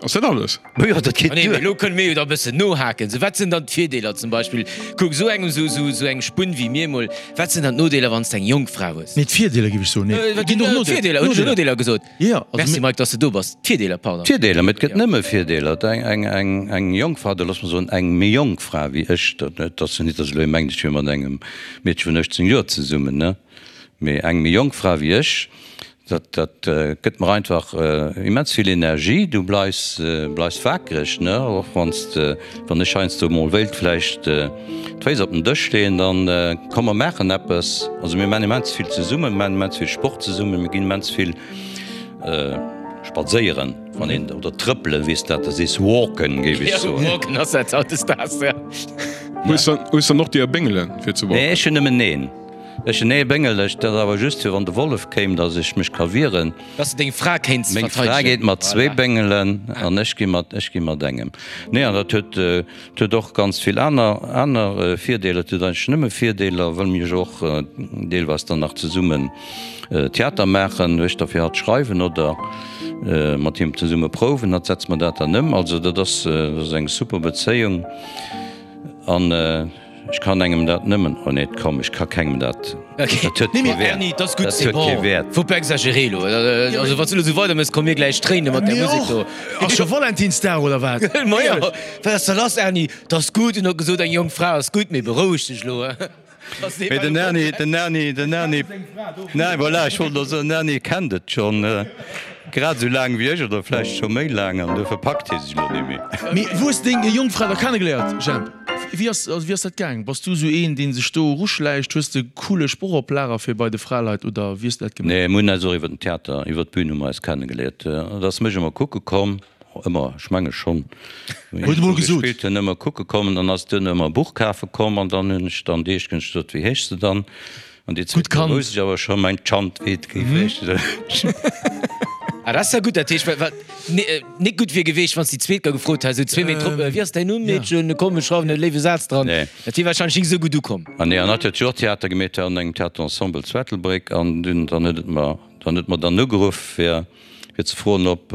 Ass dat alles? Jo, dat geet duer. Elo kënne mir jo da e bëssen nohaken. Sou, wat sinn dann d'Virdeeler zum Beispill? Kuck, esou engem, sou, sou, sou eng Spunn wéi mir emol, wat sinn dann d'Nodeeler, wann s de eng jonk Fra hues? Nee, d'Virdeeler géif ech soen. Nee, et ginn och Nodeeler. D'Virdeeler, hunn ech jo Nodeeler gesot? Jo, also Merci Mike, dass de do bass. D'Virdeeler, pardon. D'Virdeeler, mee et gëtt nëmme Virdeeler. Eng, eng, eng, eng jonk Fra, oder looss mer soen, eng méi jonk Fra wéi ech, dat, et ass jo net, dass elo ee mengt, ech wier mat engem Meedche vun 18 Joer zesummen, ne, mee eng méi jonk Fra wéi ech, Dat dat gëtt mer einfach immens vill Energie. Du bleifs bleifs wakereg, ne? Och wann s de, wann ech heiansdo mol wéilt vläicht d'Féiss op den Dësch leeën, dann komm mer maachen eppes. Also mir maachen immens vill zesummen, mir maachen immens vill Sport zesummen, mir ginn immens vill spadséieren. Wann een, oder trëppelen, wéi s dat da sees, walken, géif ech soen. Walken ass dat hautdesdaags, ja. Hues dann, hues dann och déi Béngelen, fir ze walken? Nee, ech hunn nëmmen een. Ech hunn ee Béngel, ech, dat ass awer just fir wann de Wollef kéim, datt ech mech ka wieren. Dass de deng Fra kéints Meng Fra verteidegen. geet mat zwee Béngelen an ech gi mat, ech gi mat engem. Nee, an dat huet, dat huet och ganz vill aner, aner Virdeeler. Et huet eigentlech nëmme Virdeeler, wëll mir jo och deelweis dann nach zesummen Theater maachen, ech da fir hatt schreiwen oder mat him zesumme prouwen, hatt setzt mer dat dann ëm. Also dat ass, dat ass eng super Bezéiung an ech kann engem dat nëmmen, oh nee, komm, ech ka kengem dat, dat huet kee Wäert, dat huet kee Wäert. Faut pas exagérer elo, also wann s du elo esou weider méchs, komme mir gläich Tréine mat där Musek do. Ass scho Valentinsdag oder wat? Majo, wat ass da lass Erny? 't ass gutt, en huet gesot eng jonk Fra ass gutt, mee beroueg dech elo. Mee den Erny, den Erny, den Erny, nein, voilà, ech wollt elo soen, den Erny kennt et schonn grad esou laang wéi ech oder vläicht scho méi laang an duerfir packt hie sech elo net méi. Mee wou hues de deng Jongfra da kennegeléiert, Jemp? Wéi ass, also wéi ass dat gaang? Bass du esou een, dee sech do eruschläicht? Hues de coole Sproch op Lager fir bei de Fraleit oder wéi hues de dat gemaach? Nee, mir hunn eis och iwwer den Theater, iwwer d'Bün hu mer eis kennegeléiert. Et ass mech ëmmer kucke komm. Ëmmer, ech menge schonn. Huet emol gesot. Gespillt hunn, ëmmer kucke kommen, dann ass duerno ëmmer e Buch kafe komm an dann hunn ech dann déi éischt Kéier gesot, wéi heeschs de dann? An déi zweet Kéier wousst ech awer scho mäin Chant, wéi et géif heeschen. Ah, dat ass ja gutt, dat heescht, well wat net gutt wier geweecht, wann s déi zweet Kéier gefrot häss, esou zwee Méint drop, wéi ass däin Numm, Meedchen, komm ech schreiwen e léiwe Saz dran. Dat wier warscheinlech nik esou gutt ukomm. Ah nee, an hatt huet jo och Theater gemeet an engem Theaterensemble zu Ettelbréck an dunn, dann huet et mer, dann huet mer dann ugeruff fir, fir ze froen, ob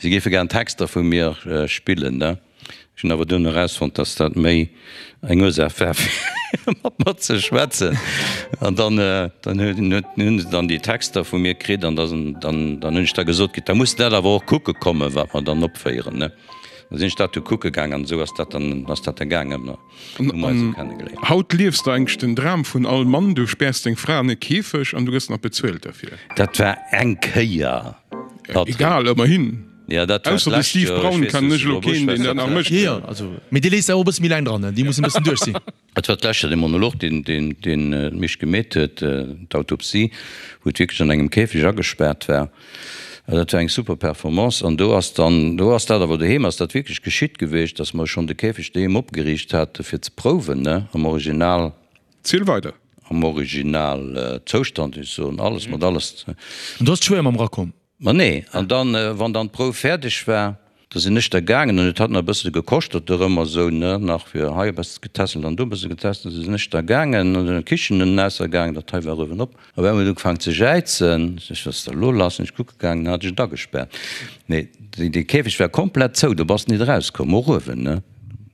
si géife gären Texter vu mir spillen. Ne? Ech hunn awer duerno erausfonnt, dass dat méi eng Ursaach war, fir mat mer ze schwätzen. An dann, dann hunn se dann déi Texter vu mir kritt an dann, dann hunn ech da gesot kritt, da muss de dat awer och kucke kommen, wat mer dann opféieren. Ne? Da sinn ech dat du kucke gaang an esou ass dat dann, ass dat da gaangen. An haut liefs de eigentlech den Dram vun all Mann, du späers deng Fra an e Käfeg an du gëss nach bezuelt derfir. Dat war eng Kéier, Patrick. Egal, ëmmerhin. Ja, dat war Ausser de d'lescht Steve Joer. Ech Braun weess kennen net, ech elo ob ech keen, weess deen dat dat nach mécht. Jo, jo, also, mee déi léisst awer och e bësse méi laang dran, ne? Déi mussen e bëssen duerch sinn. Et war d'lescht Joer dee Monolog, deen, deen, deen d'Misch gemeet huet, d'Autopsie, wou et wierklech an engem Käfeg agespaart war. Dat war eng super Performance an do ass dann, do ass dat awer doheem ass dat wierklech geschitt geweecht, dass mer schonn de Käfeg doheem opgeriicht hate fir ze prouwen, ne, am Original. Ziel weider. Am Original Zoustand, ech soen alles mat alles. An do ass d'Schwéier mam rakomm? Ma nee, an dann, wann dann d'Prouf fäerdeg war, da sinn ech da gaangen an et hat nach e bësse gekoschtert dorëmmer esou, ne, nach fir hei e bësse getässelt an do e bësse getässelt, da sinn ech da gaangen an der Kichen ënnen aussergaangen, dat hei war uewen op, op eemol huet ugefaangen ze jäizen, ech, wat ass da elo lass, sinn ech kucke gaangen, hat ech et agespaart, mee dee Käfeg war komplett zou, do bass de nit erauskomm, och uewen, ne,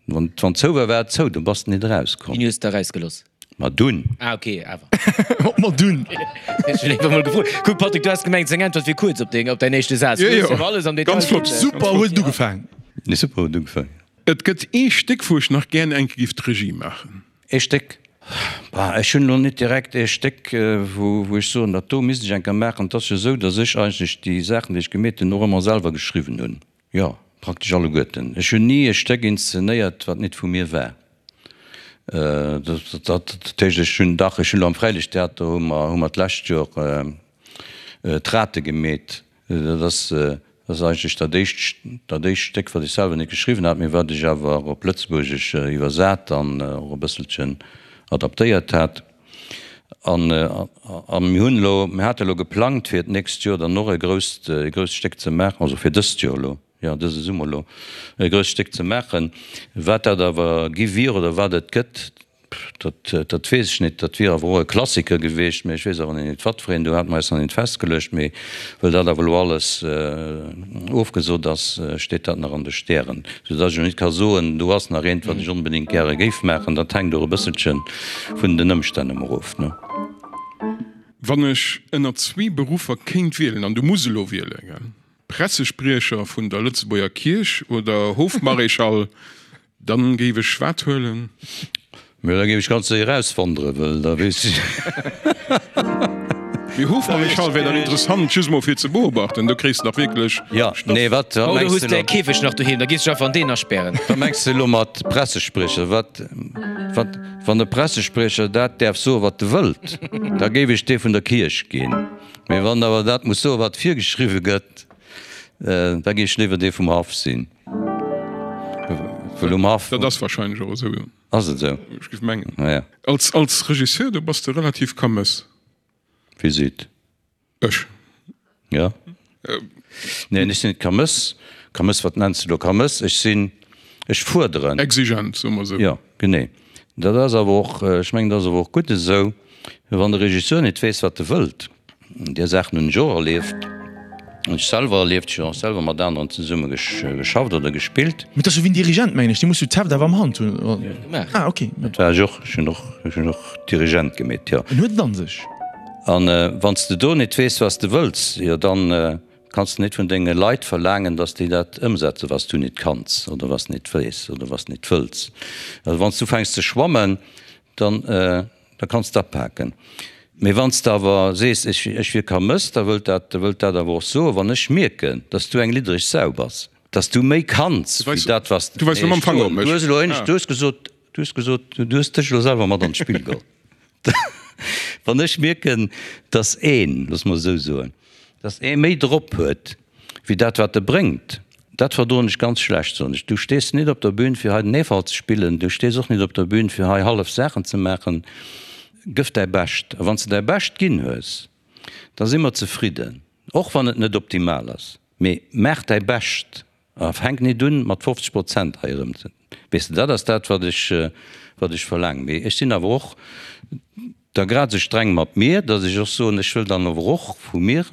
wann wann zou war, war et zou, do bass de nit erauskomm. Wien hues de erausgeloss? Ma dunn. Ah ok, awer. Op ma dunn. Ech hunn einfach mol gefrot. Kuck Patrick, du has gemengt seng Äntwert wier kuerz op deng, op däin éischte Saz. Jo, Du hues jo. jo alles am Detail Ganz flott. ginn. Super huet et ugefaang. Nee, super huet ugefaang. Et gëtt ee Stéck, wou ech nach gären eng Kéier giff d'Regie maachen. Ee Stéck? Bah, ech hunn elo net direkt ee Stéck, wou, wou ech soen, dat do misst ech eng Kéier maachen. Et ass jo esou, datt ech eigentlech déi Saachen, déi ech gemeet hunn, och ëmmer selwer geschriwwen hunn. Jo, praktesch alleguerten. Ech hunn ni e Stéck inszenéiert, wat nit vu mir war. Dat heescht, ech hunn, dach, ech hunn elo am Fräiliichttheater hu mer, hu mer d'lescht Joer d'Rate gemeet. Dat ass, dat ass eigentlech dat éischt, dat éischt Stéck, wat ech selwer net geschriwwen hat, mee wat ech awer op Lëtzebuergesch iwwersat an och e bësselchen adaptéiert hat. An, a mir hunn elo, mir hate elo geplangt, fir d'nächst Joer dann och e grousst, e grousst Stéck ze maachen, also fir dëst Joer elo, jo, dëse Summer elo e grousst Stéck ze maachen. Wat dat awer gi wier oder wat et gëtt, dat, dat weess ech net. Dat wier awer och e Klassiker gewiescht, mä ech weess awer nach net, wat fir een. Do hate mer eis nach net festgeluecht. Mee well dat awer elo alles ofgesot ass, steet dat nach an de Stären, soudass ech elo net ka soen, do ass nach eent, wat ech onbedéngt gäre géif maachen. Dat hänkt och e bësselche vun den Ëmstänn ëmmer of, ne? Wann ech ënner zwee Beruffer kéint wielen, an du muss elo wielen, gell? Pressespriecher vun der Lëtzebuerger Kierch oder Hofmaréchal, dann géif ech wat huelen? Mee da géif ech ganz séier auswanderen, well da weess ech. Mee Hofmaréchal wär dann interessant, just mol fir ze beobachten, do kréis de dach wierklech Jo, Stoff. nee, wat Oh, du mengs hues de däi elo? Käfeg nach doheem, da gees du dech einfach an deen aspären. Wat mengs de elo mat Pressespriecher? Wat, wat, wann e Pressespriecher dat däerf soen, wat e wëllt, da géif ech dee vun der Kierch ginn. Mee wann awer dat muss soen, wat virgeschriwwe gëtt. Da géif ech léiwer dee vum Haff sinn. Well um Haff. Dat ass wahrscheinlech och esou, jo. Ass et esou? Ech géif mengen. Ja. Als, als Regisseur, do bass de relativ kamëss. Wie seet? Ech. Ja. Neen, ech sinn net kamëss. Kamëss, wat nenns de do kamëss? Ech sinn, ech fuerderen. Exigent, soe mer esou. Jo, genee. Dat ass awer och, ech mengen, dat ass awer och gutt esou, wann de Regisseur net weess, wat e wëllt. Där Saachen hunn ech och erlieft, hunn ech selwer erlieft. Ech hunn och selwer mat aneren zesumme geschafft oder gespillt. Mee dat ass jo wéi en Dirigent, mengen ech, dee muss jo d'Heft awer am Hand hunn. Ah, ok. Dat war ech och. Ech hunn och, ech hunn och Dirigent gemeet, jo. En huet et an sech. An wann s de do net weess, wat s de wëlls, jo dann kanns de net vun denge Leit verlaangen, datt déi dat ëmsetzen, wat s du net kanns oder wat s net weess oder wat s net wëlls. Also wann s du ufänks ze schwammen, dann da kanns de apaken. Mee wann s de awer sees, ech ech wier Kamëss, da wëllt dat da wëllt dat awer och soen, wann ech mierken, datt s du eng liddereg Sau bass, datt s du méi kanns wéi dat, wat s Du weis elo mam Fanger op mech. Du hues elo éinescht, du hues gesot, du hues gesot, du hues dech elo selwer mat an d'Spill geholl. Wann ech mierken, dass een, looss mer esou soen, dass ee méi drop huet wéi dat wat e bréngt, dat verdroen ech ganz schlecht, soen ech. Du stees net op der Bühn fir hei den Eefalt ze spillen, du stees och net op der Bühn fir hei hallef Saachen ze maachen. Gëff däi Bescht a wann s de däi Bescht ginn hues, da si mer zefridden, och wann et net optimal ass, mee maach däi Bescht. A fänk nit un mat 50 Prozent hei erëm ze, weess de, dat ass dat wat ech, wat ech verlaangen. Mee ech sinn awer och da grad esou streng mat mir, datt ech och soen, ech wëll dann awer och vu mir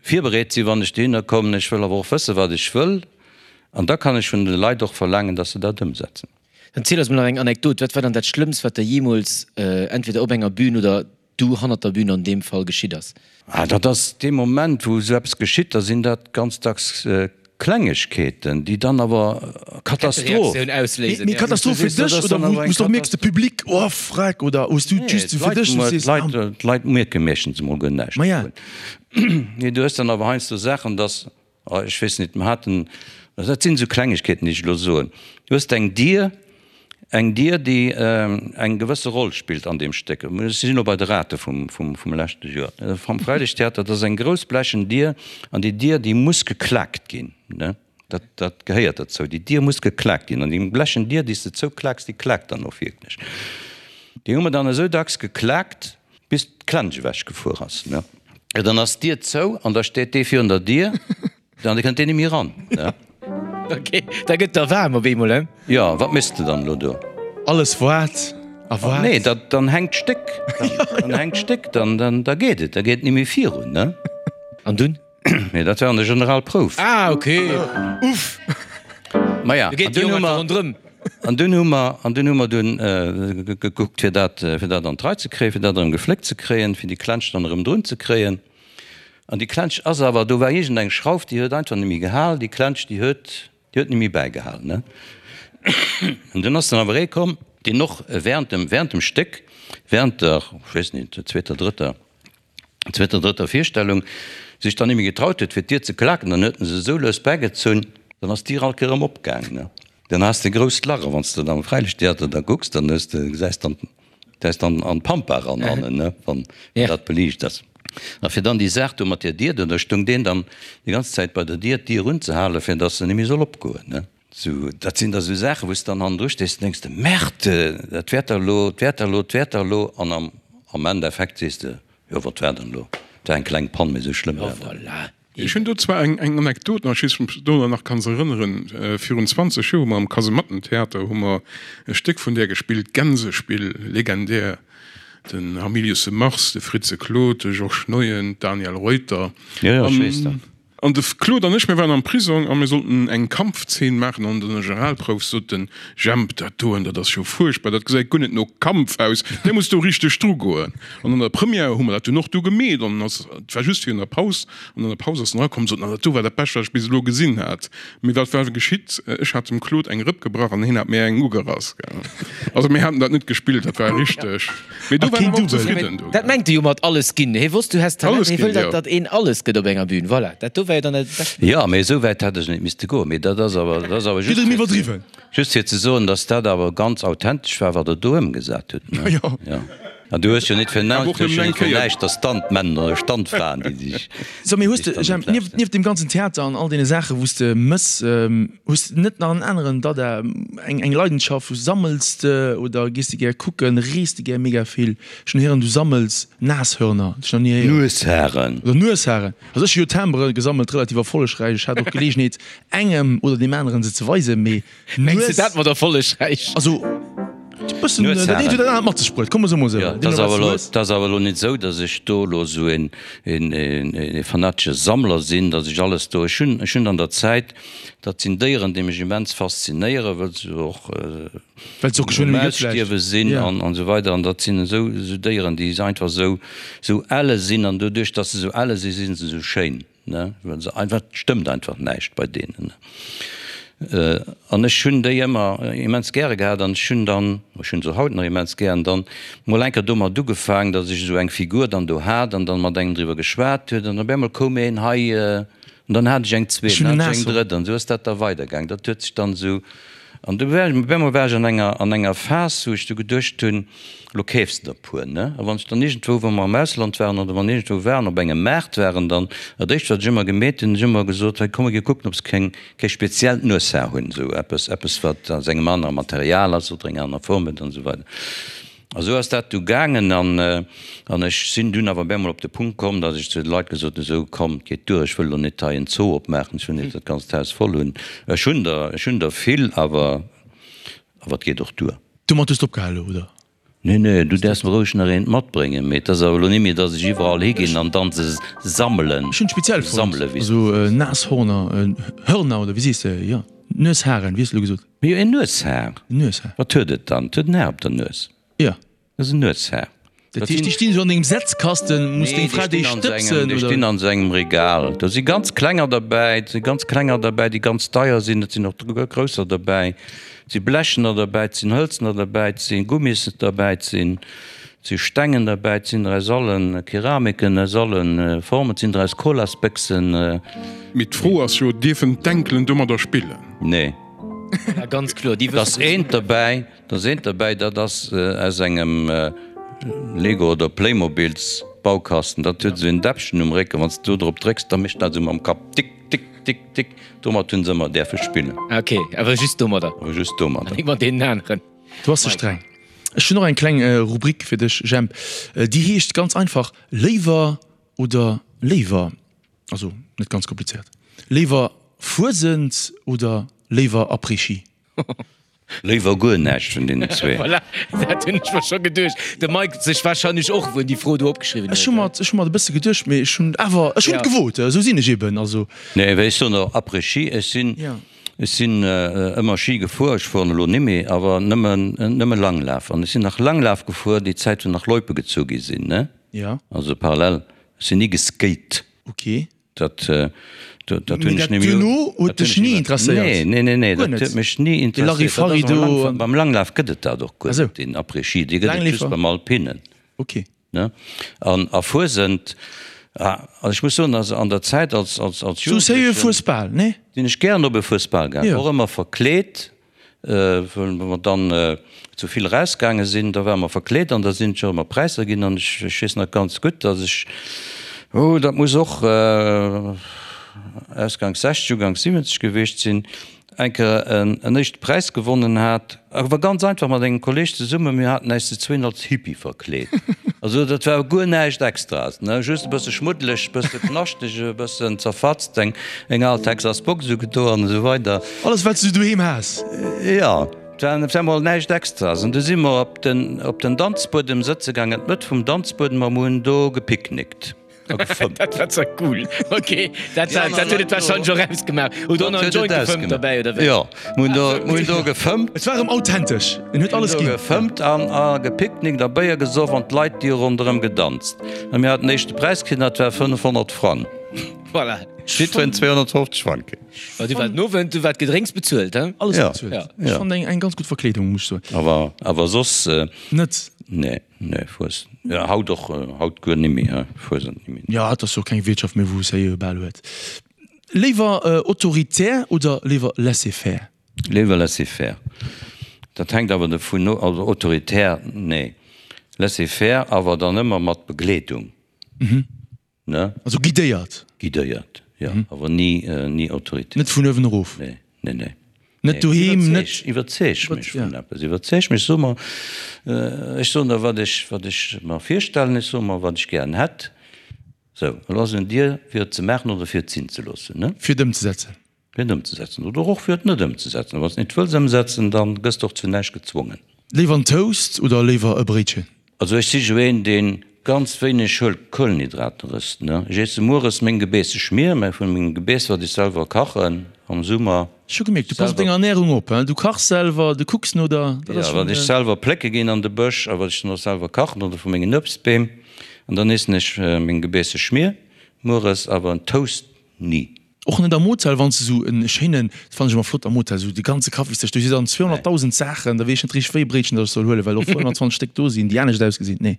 virbereet sinn, wann ech dohinner kommen. Ech wëll awer och wëssen, wat ech wëll, an da kann ech vun de Leit och verlaangen, datt se dat ëmsetzen. Dann ziel eis mol nach eng Anekdot. Wat war dann dat Schlëmmst, wat der jeemools entweder op enger Bühn oder du hannert der Bühn an deem Fall geschitt ass? Ah, dat ass dee Moment, wou esou eppes geschitt, da sinn dat ganz dacks Klengegkeeten, déi dann awer Katastroph. Kettereaktioun ausléisen. Mee Katastroph fir dech oder wou s du och mierks, de Public, oh freck, oder hues du just fir dech, wou s du sees, ah. D'Leit mierke meeschtens emol guer näischt dovun. Mee du hues dann awer heiansdo Saachen, dass Ech weess net, mer haten, dat sinn esou Klengegkeeten, déi ech elo soen, du hues eng Dier, eng Dier, déi eng gewësse Roll spillt an deem Stéck. Ech sinn elo bei de Rate vum, vum leschte Joer, vum Freilichttheater, dat ass eng grouss blechen Dier an déi Dier, déi muss geklaakt ginn, ne, dat, dat gehéiert derzou, déi Dier muss geklaakt ginn an déi blechen Dier, déi s de zouklaaks, déi klaakt dann och wierklech. Déi hu mer dann esou dacks geklaakt, Bis d'Klensch ewech gefuer ass, ne? Jo, dann ass d'Dier zou an da steet dee virun der Dier an da kënnt deen net méi eran, ne? Ok, da gëtt der waarm op eemol, he? Jo, wat méchs de dann elo do? Alles waart a waart. Nee, da, dann hänkt d'Stéck, dann hänkt d'Stéck, dann, dann, da geet et, da geet et net méi virun, ne? An dunn? Nee, dat war an der Generalprouf. Ah, ok. Uff. Maja, Du geet déi och einfach ronderëm. An dunn hu mer, an dunn hu mer dunn gekuckt, fir dat, fir dat an d'Rei ze kréien, fir dat erëm gefléckt ze kréien, fir déi Klensch dann erëm drun ze kréien. An déi Klensch ass awer, do war iergendeng Schrauf, déi huet einfach net méi gehal, déi Klensch, déi huet, déi huet net méi bäigehal, ne. An dunn ass dann awer ee komm, deen och während dem, während dem Stéck, während der, ech weess net, der zweeter, drëtter, zweeter, drëtter Virstellung sech dann némme getraut huet fir d'Dier ze klaken, dann huet en se esou lues bägezunn, dann ass d'Dier alt erëm opgaangen, ne. Dann has de e grousst Lach, a wann s de dann am Fräilichttheater da kucks, dann hues de, gesäis dann, gesäis dann an d'Pampa eran hannen, ne, wann dat beliicht ass. A fir dann déi Saach do mat där Dier do, da stoung deen dann déi ganz Zäit bei der Dier, d'Dier unzehalen, fir dass se némme soll opgoen, ne. Sou, dat sinn da sou Saachen, wou s de dann hannendru stees an denks de, Merde, dat wäert der elo, dat wäert der elo, dat wäert der elo. An am, am Endeffekt sees de, jo, wat war dann elo? Et war eng kleng Pann, mee sou schlëmm war dat net. Ech hunn do zwar eng, eng Anekdot nach, ech weess net, ob s de dech dorunner nach kanns erënneren. Virun 20 Joer hu mer am Kasemattentheater hu mer e Stéck vun där gespillt, Gänsespill, legendär, den Hamilius de Mars, de Fritze Claude, de Georges Neuen, d'Daniel Reuter. Jo, jo, ech weess dat. An de Claude an ech, mir waren am Prisong a mir sollten eng Kampfzeen maachen. An der Generalprouf sot den Jemp, Dat doen, dat ass jo fuerchtbar, dat gesäit guer net no Kampf aus, där muss do richteg drugoen. An an der Première hu mer dat dunn och du gemeet an ass, et war just virun der Paus, an an der Paus ass en erakomm an sot, Na, dat do war dat Bescht, wat ech bis elo gesinn hat. Mee wat war geschitt? Ech hat dem Claude eng Rëpp gebrach an hien hat mir eng ugerass. Also mir haten dat net gespillt, dat war richteg. Mee do war en awer och zefridden do. Dat mengt e jo mat alles ginn. Hie wosst, du häss Talent, hie wëll, datt datt een alles gëtt op enger Bühn. Voilà, dat do war jo dann dat bescht. Jo, mee esou wäit hätt ech net misste goen. Mee dat ass awer, dat ass awer just fir, just fir ze soen, datt dat awer ganz authentesch war, wat der do ëmgesat hutt, ne? Jo. An du hues jo net fir Awer och nëmmen eng Kéier. näischt der Stuntmänner oder Stuntfraen, déi sech. So, mee hues de, Jemp, nieft, nieft deem ganzen Theater an all deene Saachen, wou s de mëss, hues de net nach en aneren Dada, eng, eng Leidenschaft, wou sammels de oder gees de gär kucken, rees de gär mega vill? Ech hunn héieren, du sammels Nashörner, dat ech nach ni héieren. Nuesharen. Oder Nuesharen. Also ech hu jo Timbere gesammelt, relativ erfollegräich. Ech hat och d'Geleegenheet, engem oder deem aneren se ze weisen, mee. Mengs de dat mat erfollegräich? Also bëssen dat eent huet dat anert mat sech bruet, komm mer soe mol esou. Jo, et ass awer elo, et ass awer elo net esou, datt ech do elo esou een, een, ee fanatesche Sammler sinn, datt ech alles do, ech hunn, ech hunn an der Zäit, dat sinn Déieren, déi mech immens faszinéieren, wëll se och Well se och geschwënn um Ausstierwe sinn an esou weider an dat sinn esou, esou Déieren, déi einfach esou, esou elle sinn an doduerch, datt se esou elle sinn, si se esou schéin. Ne, well se einfach, et stëmmt einfach näischt bei deenen. An ech hunn déi ëmmer immens gäre gehat an ech hunn dann, ech hunn se haut nach immens gär, an dann mol eng Kéier domat ugefaangen, datt ech esou eng Figur dann do hat an dann mat engem driwwer geschwat huet an op eemol koum een hei an dann hat ech eng zweet, dann hat ech eng drëtt an esou ass dat da weidergaangen. Dat huet sech dann esou, an du war ech, op eemol war ech an enger, an enger Phas, wou ech du geduecht hunn, Lo keefs de der puer, ne? A wann ech dann iergendwou, wa mer am Ausland waren oder wann iergendwou waren, op engem Maart waren, dann dat éischt wat ech ëmmer gemeet hunn, ech ëmmer gesot, hei komm mer gi kucken, ob se keng, kee speziellt Nueshaar hunn, esou eppes, eppes wat aus engem anere Material ass oder eng aner Form huet an esou weider. A sou ass dat du gaangen an, an ech sinn dunn awer op eemol op de Punkt komm, datt ech zu de Leit gesot hunn, esou komm, et geet duer, ech wëll elo net hei en Zoo opmaachen, ech wëll net dat ganzt Haus voll hunn. Ech hunn der, ech hunn der vill, awer, awer et geet och duer. Domat hues de opgehal elo, oder? Nee, nee, du däerfs mer roueg nach eent matbréngen, mee et ass awer elo nimmi, dass ech iwwerall higinn an dann se sammelen. Ech hunn speziell fonnt, also Nashorner, Hörner oder wéi sees de, jo, Nuesharen, wéi hues de elo gesot? Mee jo, en Nueshaar. En Nueshaar. Wat huet et dann? Et huet en Haar op der Nues. Jo. Dat ass en Nueshaar. Dat heescht, déi stinn esou an dengem Setzkasten, muss deng Fra déi stëbsen, oder? Déi stinn an esou engem Regal. Do si ganz klenger derbäi, et si ganz klenger derbäi, déi ganz deier sinn, et sinn och grousser derbäi, et si blechener derbäi, et sinn hëlzener derbäi, et si Gummis derbäi, et sinn, et si Stengen derbäi, et sinn der aus alle Keramiken, aus alle Formen, et sinn der aus Colasbéchsen. Mee d'Fro ass jo, Dierfen d'Enkelen domadder spillen? Nee. Ja, ganz kloer, déi wëssen. Et ass eent derbäi. Da ass eent derbäi, dat ass aus engem Lego oder Playmobil's Baukasten. Dat huet esou en Däppchen um Récken, wann s de do drop drécks, da mécht dat esou mam Kapp tick, tick, tick, tick. Domat hunn se ëmmer däerfe spillen. Ok, awer just domadder? Awer just domadder. An net mat deenen aneren. Du bass ze streng. Ech hunn och eng kleng Rubrik fir dech, Jemp. Déi heescht ganz einfach Léiwer oder léiwer. Also net ganz komplizéiert. Léiwer Fuesent oder léiwer Après-Ski? Léiwer guer näischt vun deenen zwee. Voilà, dat hunn ech mer scho geduecht. De Mike sech warscheinlech och, wou en déi Fro do opgeschriwwen huet. Ech hu mer, ech hu mer et e bësse geduecht, mee ech hunn awer, ech hunn et gewot, esou sinn ech eben, also. Nee, wéi ech soen och Après-Ski, ech sinn, ech sinn ëmmer Ski gefuer, ech fueren elo nimmi, awer nëmmen, nëmme Langlaf. An ech sinn nach Langlaf gefuer déi Zäit, wou nach Loipe gezu gi sinn, ne? Ja. Also parallel, ech sinn ni geskate. Ok. Dat, dat hunn ech nemmi. Duerno huet dech ni interesséiert? Nee, nee, nee, nee, dat huet mech ni interesséiert. De Larifari do. Beim Langlaf gëtt et dat och guer net, deen Après-Ski, dee gëtt et just beim Alpinen. Ok. Ne? An a Fuesent, also ech muss soen, also an der Zäit als, als, als Jugendlechen. Sou Fuesbal, nee? Sinn ech gären op e Fuesbal gaangen, och ëmmer verkleet. Wou mer dann zu vill erausgaange sinn, da ware mer verkleet an da sinn et jo ëmmer Präisser ginn. An ech weess nach ganz gutt, datt ech, oh dat muss och ausganks 60, uganks 70 gewiescht sinn, eng Kéier en éischte Präis gewonnen hat, awer ganz einfach mat engem Kolleeg zesummen, mir haten äis zu zwéin als Hippie verkleet. Also dat war guer näischt Extraes, ne, just e bësse schmuddeleg, e bësse knaschteg, e bëssen zerfatzt, eng al Texas Box ugedo an esou weider. Alles wat s du doheem has. Jo, et war op eemol näischt Extraes. An du si mer op den, op den Danzbuedem sëtze gaangen, an d'Mëtt vum Danzbuedem, a mer hunn do gepicknickt a gefëmmt. Dat war zwar cool. Ok, dat war, dat huet et warscheinlech och ausgemaach. Hutt Der och nach en Joint gefëmmt derbäi, oder wéi? Jo, mer hunn do, mer hunn do gefëmmt. Et war erëm authentesch, en huet alles ginn. Mer hunn do gefëmmt an a gepicknickt a Béier gesoff an d'Leit, déi hu ronderëm gedanzt. A mir haten den éischte Präis kritt, an dat war 500 Frang. Voilà. Jiddwereen 250 Frang kritt. Ma du war den Owend, du war d'Gedrénks bezuelt, he? Alles Ja, bezuelt. ja. Ech fand eng, eng ganz gutt Verkleedung, muss ech soen. Awer, awer soss. Net? Nee, nee, Fues, ja, haut och, haut guer nimmi, he, Fuesent nimmi. Ja, et ass jo keng Wiertschaft méi, wou es héi bal huet. Léiwer autoritär oder léiwer laisser-faire? Léiwer laisser-faire. Dat hänkt awer dovun of, also autoritär, nee. Laissez-faire, awer dann ëmmer mat Begleedung. Ne? Also guidéiert? Guidéiert, jo, awer ni, ni autoritär. Net vun uewen erof? Nee, nee, nee. Net doheem, net. Iwwerzeeg mech vun eppes, iwwerzeeg mech, so mer, ech soen der, wat ech, wat ech mer virstellen, ech soe mer, wat ech gären hätt. Sou, elo ass et un dir, fir et ze maachen oder fir et sinn ze loossen, ne? Fir et ëmzesetzen. Fir et ëmzesetzen oder och fir et net ëmzesetzen. A wann s de et net wëlls ëmsetzen, da gëss de och zu näischt gezwongen. Léiwer en Toast oder léiwer e Bréitchen? Also ech si jo een, dee ganz wéineg Kuelenhydrater ësst, ne. Ech iesse mueres meng gebeesse Schmier, mä vun mengem Gebeess, wat ech selwer kachen am Summer. Ech hu gemierkt, du pass op deng Ernährung op, hein. Du kachs selwer, du kucks no der, dat ass Jo, wat ech selwer plécke ginn an de Bësch a wat ech dann och selwer kachen oder vu mengen Uebstbeem. An dann iessen ech meng gebeesse Schmier mueres, awer en Toast ni. Och net am Hotel, wann s de sou en schéinen, dat fannen ech ëmmer flott am Hotel, sou de ganze Kaffisdësch, do si dann 200.000 Saachen, da weess ech net richteg wéi e Bréitchen datt ech soll huelen, well och 120 Stéck do sinn, déi anescht ausgesinn. Nee,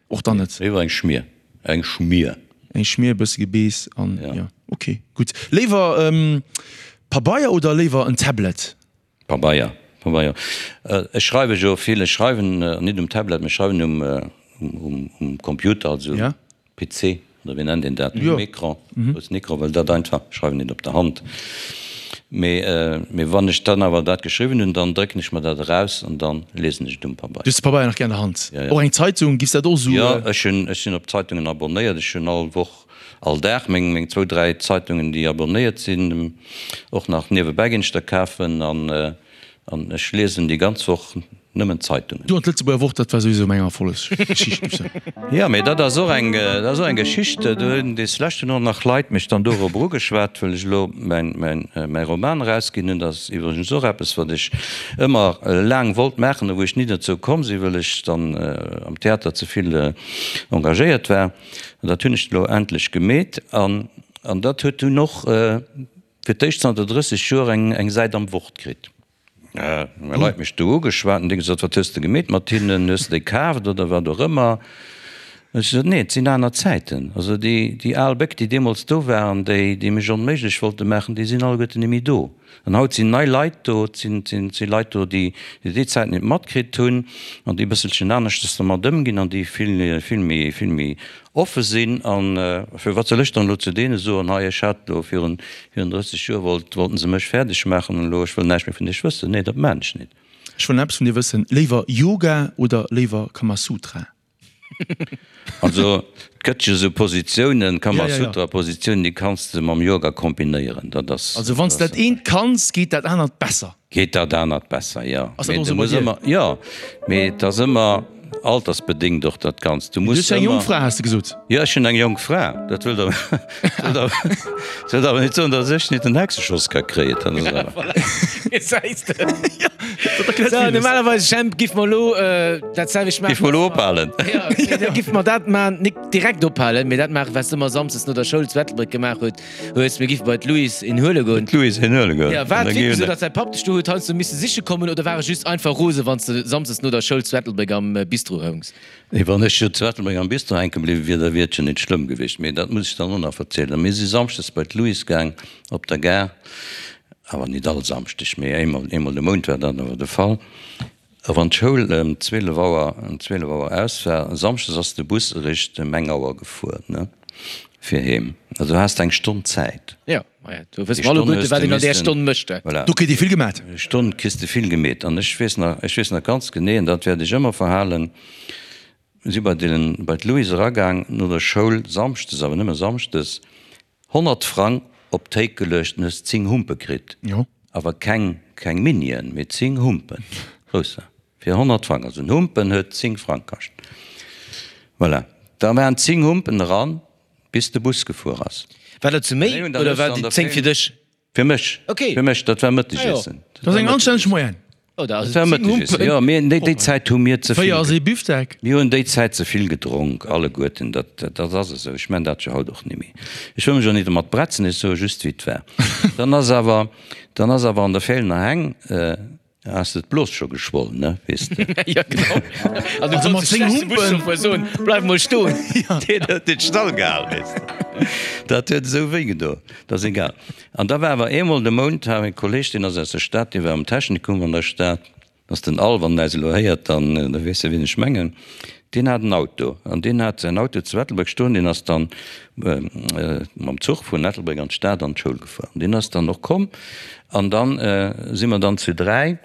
och dann net. Léiwer eng Schmier, eng Schmier. Eng Schmier, e bësse Gebeess an jo, ok, gutt. Léiwer Pabeier oder léiwer en Tablet? Pabeier, Pabeier. Ech schreiwe jo vill, ech schreiwen net um Tablet, mee ech schreiwen um, um Computer, also um PC, oder wéi nennt een dat, um Ecran, groussen Ecran, well dat einfach, ech schreiwen net op der Hand. Mee, mee wann ech dann awer dat geschriwwen hunn, dann drécken ech mer dat eraus an dann liesen ech et um Pabeier. Du hues de Pabeier nach gär an der Hand? Och eng Zeitung, giffs dat och esou? Jo, ech hunn, ech sinn op Zeitungen abonnéiert, ech hunn all Woch All Dag meng meng zwou, dräi Zeitungen déi abonnéiert sinn, och nach niewebäi ginn ech der kafen an an ech liesen déi ganz Woch nëmmen Zeitungen. Du an d'Lëtzebuerger Wort, dat war souwisou meng Erfollegsgeschicht, muss ech soen. Jo, mee dat ass och eng, dat ass och eng Geschicht. Do hunn des leschten och nach Leit mech dann dorobber ugeschwat, well ech elo mäin mäin mäi Roman erausginn hunn. Dat ass iwwregens och eppes wat ech ëmmer laang wollt maachen a wou ech ni dozou komm sinn, well ech dann am Theater ze vill engagéiert war. An dat hunn ech elo endlech gemeet. An, an dat huet dunn och fir d'éischt zanter 30 Joer eng, eng Säit am Wort kritt. Hu Leit mech do ugeschwat an déi gesot, Wat hues de gemeet mat hinnen? Hues de déi kaaft oder wat och ëmmer? Hunn ech gesot, Nee, et sinn aner Zäiten. Also déi, déi al Béck, déi deemools do waren, déi, déi mech onméiglech wollte maachen, déi sinn alleguerten net méi do. An haut sinn nei Leit do, et sinn, et si Leit do, déi déi Zäit net matkritt hunn an déi e bësselchen aneschtes dermat ëmginn an déi vill, vill méi, vill méi offe sinn. An fir wat soll ech dann elo zu deene soen, hei ech hat elo virun, virun 30 Joer wollt, wollten se mech fäerdeg maachen an elo ech wëll näischt méi vun iech wëssen. Nee, dat maan ech net. Ech wëll nach eppes vun dir wëssen, Léiwer Yoga oder léiwer Kamasutra? Also et gëtt jo sou Positiounen, Kamasutra-Positiounen, déi kanns de mam Yoga kombinéieren. Dat ass. Also wann s de dat eent kanns, geet dat anert besser? Geet dat anert besser, jo. Ass dat och sou bei dir? Jo, mee et ass ëmmer altersbedéngt och dat Ganzt. Du muss. Du hues jo eng jonk Fra, has de gesot. Jo, ech hunn eng jonk Fra. Dat wëllt awer, dat wëllt awer net soen, datt ech net en Hexeschoss ka kréien. Dat ass awer. Voilà, gesäis de. Sou, normalerweis, Jemp, giff mer elo dat selwecht maachen. Giff mer elo ophalen. Jo, da giff mer dat maachen, nik direkt ophalen, mee dat maachen, wat s de ëmmer samsdes no der Schoul zu Ettelbréck gemaach huet, hues. Mir giffe bei d'Louise een huele goen. D'Louise een huele goen. Jo, war et wierklech esou, datt säi Papp dech do huet heiansdo misse siche kommen, oder war e just einfach rose, wann s de samsdes no der Schoul zu Ettelbréck am Bistro houngs? Nee, wann ech jo zu Ettelbréck am Bistro hänke bliwwe wier, da wier et jo nit schlëmm gewiescht. Mee dat muss ech dann och nach verzielen. Mir si samschdes bei d'Louise gaang op der Gare, awer nit all Samschdeg, mee eemol, eemol de Mount war dat awer de Fall. A wann d'Schoul ëm 12 Auer, ëm 12 Auer aus war, samschdes ass de Bus eréischt ëm eng Auer gefuer, ne, fir heem. Also du has eng Stonn Zäit. Jo, maja, do wësse mer alleguerte, wat een an där Stonn mécht. Voilà. Do kritt ee vill gemat. Stonn kriss de vill gemeet. An ech weess nach, ech weess nach ganz genee, an dat wäert ech ëmmer verhalen, mir si bei den, bei d'Louise eragaang no der Schoul, samschdes, awer nëmme samschdes, 100 Frang op d'Théik geluecht an hues 10 Humpe kritt. Jo. Awer keng, keng Minien, mee 10 Humpen, grousser, fir 100 Frang. Also en Humpen huet 10 Frang kascht. Voilà. Da waren 10 Humpen eran, bis de Bus gefuer ass. War dat zu méi oder war déi 10 fir dech? Fir mech, Okay. fir mech, dat war Mëttegessen. Dat ass eng anstänneg Moyenne. Oh, da ass Dat war Mëttegessen, jo. Mir, déi, déi Zäit hu mir ze vill. 4 ass ee Bifdeck. Mir hunn déi Zäit ze vill gedronk, alleguerten. Dat, dat ass esou. Ech man dat jo haut och nimmi. Ech wëll mech och nit domat bretzen, ech soe just, wéi et war. Dann ass awer, dann ass awer an der Feelener Heng, Has de d'Blos scho geschwoll, ne, weess de. Ja, genau. An du Also mat konns de 10 schlechte Humpen. Buschauffeur soen, Bleif mol stoen. Deen huet den Stall gehal, weess de. Dat huet esou wéi gedo. Dat ass egal. An da war awer eemol de Mount, hat e Kolleg, deen ass aus der Stad, dee war am Technikum an der Stad. Dat ass den Al, wann en äis elo héiert, dann da weess e wien ech mengen. Deen hat en Auto an deen hat säin Auto zu Ettelbréck stoen. Deen ass dann mam Zuch vun Ettelbréck an d'Stad an d'Schoul gefuer. An deen ass dann och komm an dann si mer dann zu 3,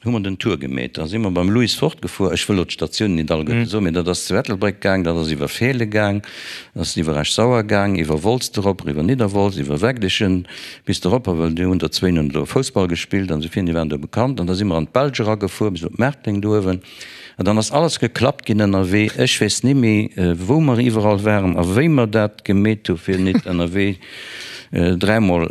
hu mer den Tour gemeet. Da si mer beim Louis fortgefuer. Ech wëll elo d'Statiounen nit alleguerte soen, mee dat ass zu Ettelbréck gaang, dat ass iwwer Feele gaang, dat ass iwwer Esch-Sauer gaang, iwwer Wolz erop, eriwwer Nidderwolz, iwwer Wegdichen bis eropper, well déi hunn der zwéin hunn do Foussball gespillt an esou virun, déi waren do bekannt. An da si mer an d'Belsch eragefuer bis op Merteng do uewen. An dann ass alles geklappt ginn ënnerwee. Ech weess ni méi, wou mer iwwerall waren a wéi mer dat gemeet hu fir nit ënnerwee dräimol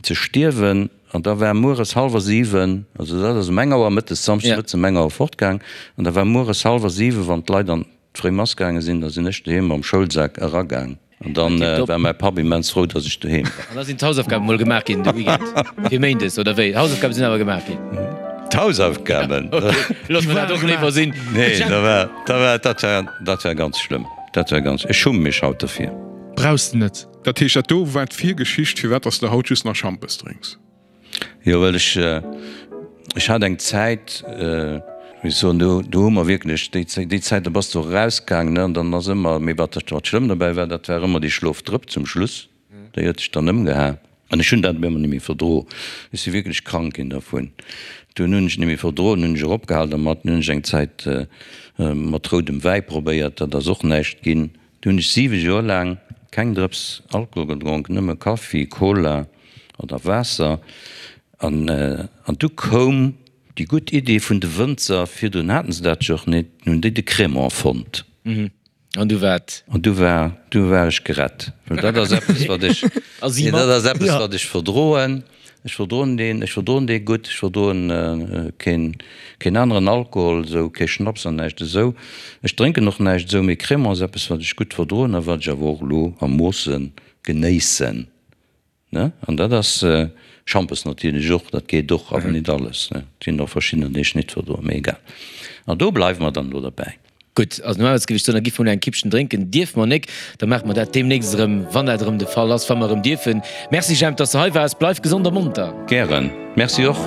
ze stierwen. An da war mueres hallwer 7, also dat ass um eng Auer mëttes, Samschdes mëttes um eng Auer fortgaang, an da war mueres hallwer 7, wann d'Leit an d'fréi Mass gaange sinn, da sinn ech doheem mam Schoulsak eragaang. An dann war mäi Papp immens frou, datt ech doheem war. An da sinn d'Hausaufgaben mol gemaach ginn de Weekend fir méindes, oder wéi? D'Hausaufgabe sinn awer gemaach ginn? D'Hausaufgaben? Ok, loosse mer dat och léiwer sinn. Nee, da war, da war, dat war, dat war ganz schlëmm. Dat war ganz, ech schumme mech haut derfir. Brauchs de net. Dat heescht, dat do war d'Virgeschicht, firwat dass de haut just nach Schampes drénks? Jo, well ech, ech hat eng Zäit, wéi ech soen, do, do hu mer wierklech, déi, déi Zäit, do bass de och erausgaangen, ne, an dann ass ëmmer, mee wat, wat schlëmm dobäi war, dat war ëmmer déi Schlofdrëpp zum Schluss, déi huet dech dann ëmgeha. An ech hunn dat op eemol net méi verdro. Ech si wierklech krank ginn dervun. Dunn hunn ech et net méi verdroen, hunn ech eropgehal dermat. Dunn hunn ech eng Zäit mat roudem Wäi probéiert, dat ass och näischt ginn. Du hunn ech 7 Joer laang keng Drëps Alkohol gedronk, nëmme Kaffi, Cola oder Waasser. An an du koum déi gutt Idee vun de Wënzer, virdrun haten se dat jo och net, hunn déi de Crémant fonnt. An du waart. An du war, du war ech gerett, well dat ass eppes wat ech, nee dat ass eppes wat ech verdroen. Ech verdroen deen, ech verdroen dee gutt, ech verdroen keen, keen aneren Alkohol esou, kee Schnaps an näischt esou. Ech drénken och näischt esou, mee Crémant ass eppes, wat ech gutt verdroen a wat ech awer och elo a Moosse genéissen, ne. An dat ass Schampes natierlech och, dat geet och, awer nit alles, ne. Et ginn och verschiddener, déi ech nit verdroen, mee egal. An do bleiwe mer dann elo derbäi. Gutt, also normalerweis géif ech soen, da giff mer elo eng Kippchen drénken. Dierfe mer nek, da maache mer dat deemnächst erëm, wann dat erëm de Fall ass, wa mer erëm dierfen. Merci Jemp, dass de hei waars. Bleif gesond a monter. Gären. Merci och.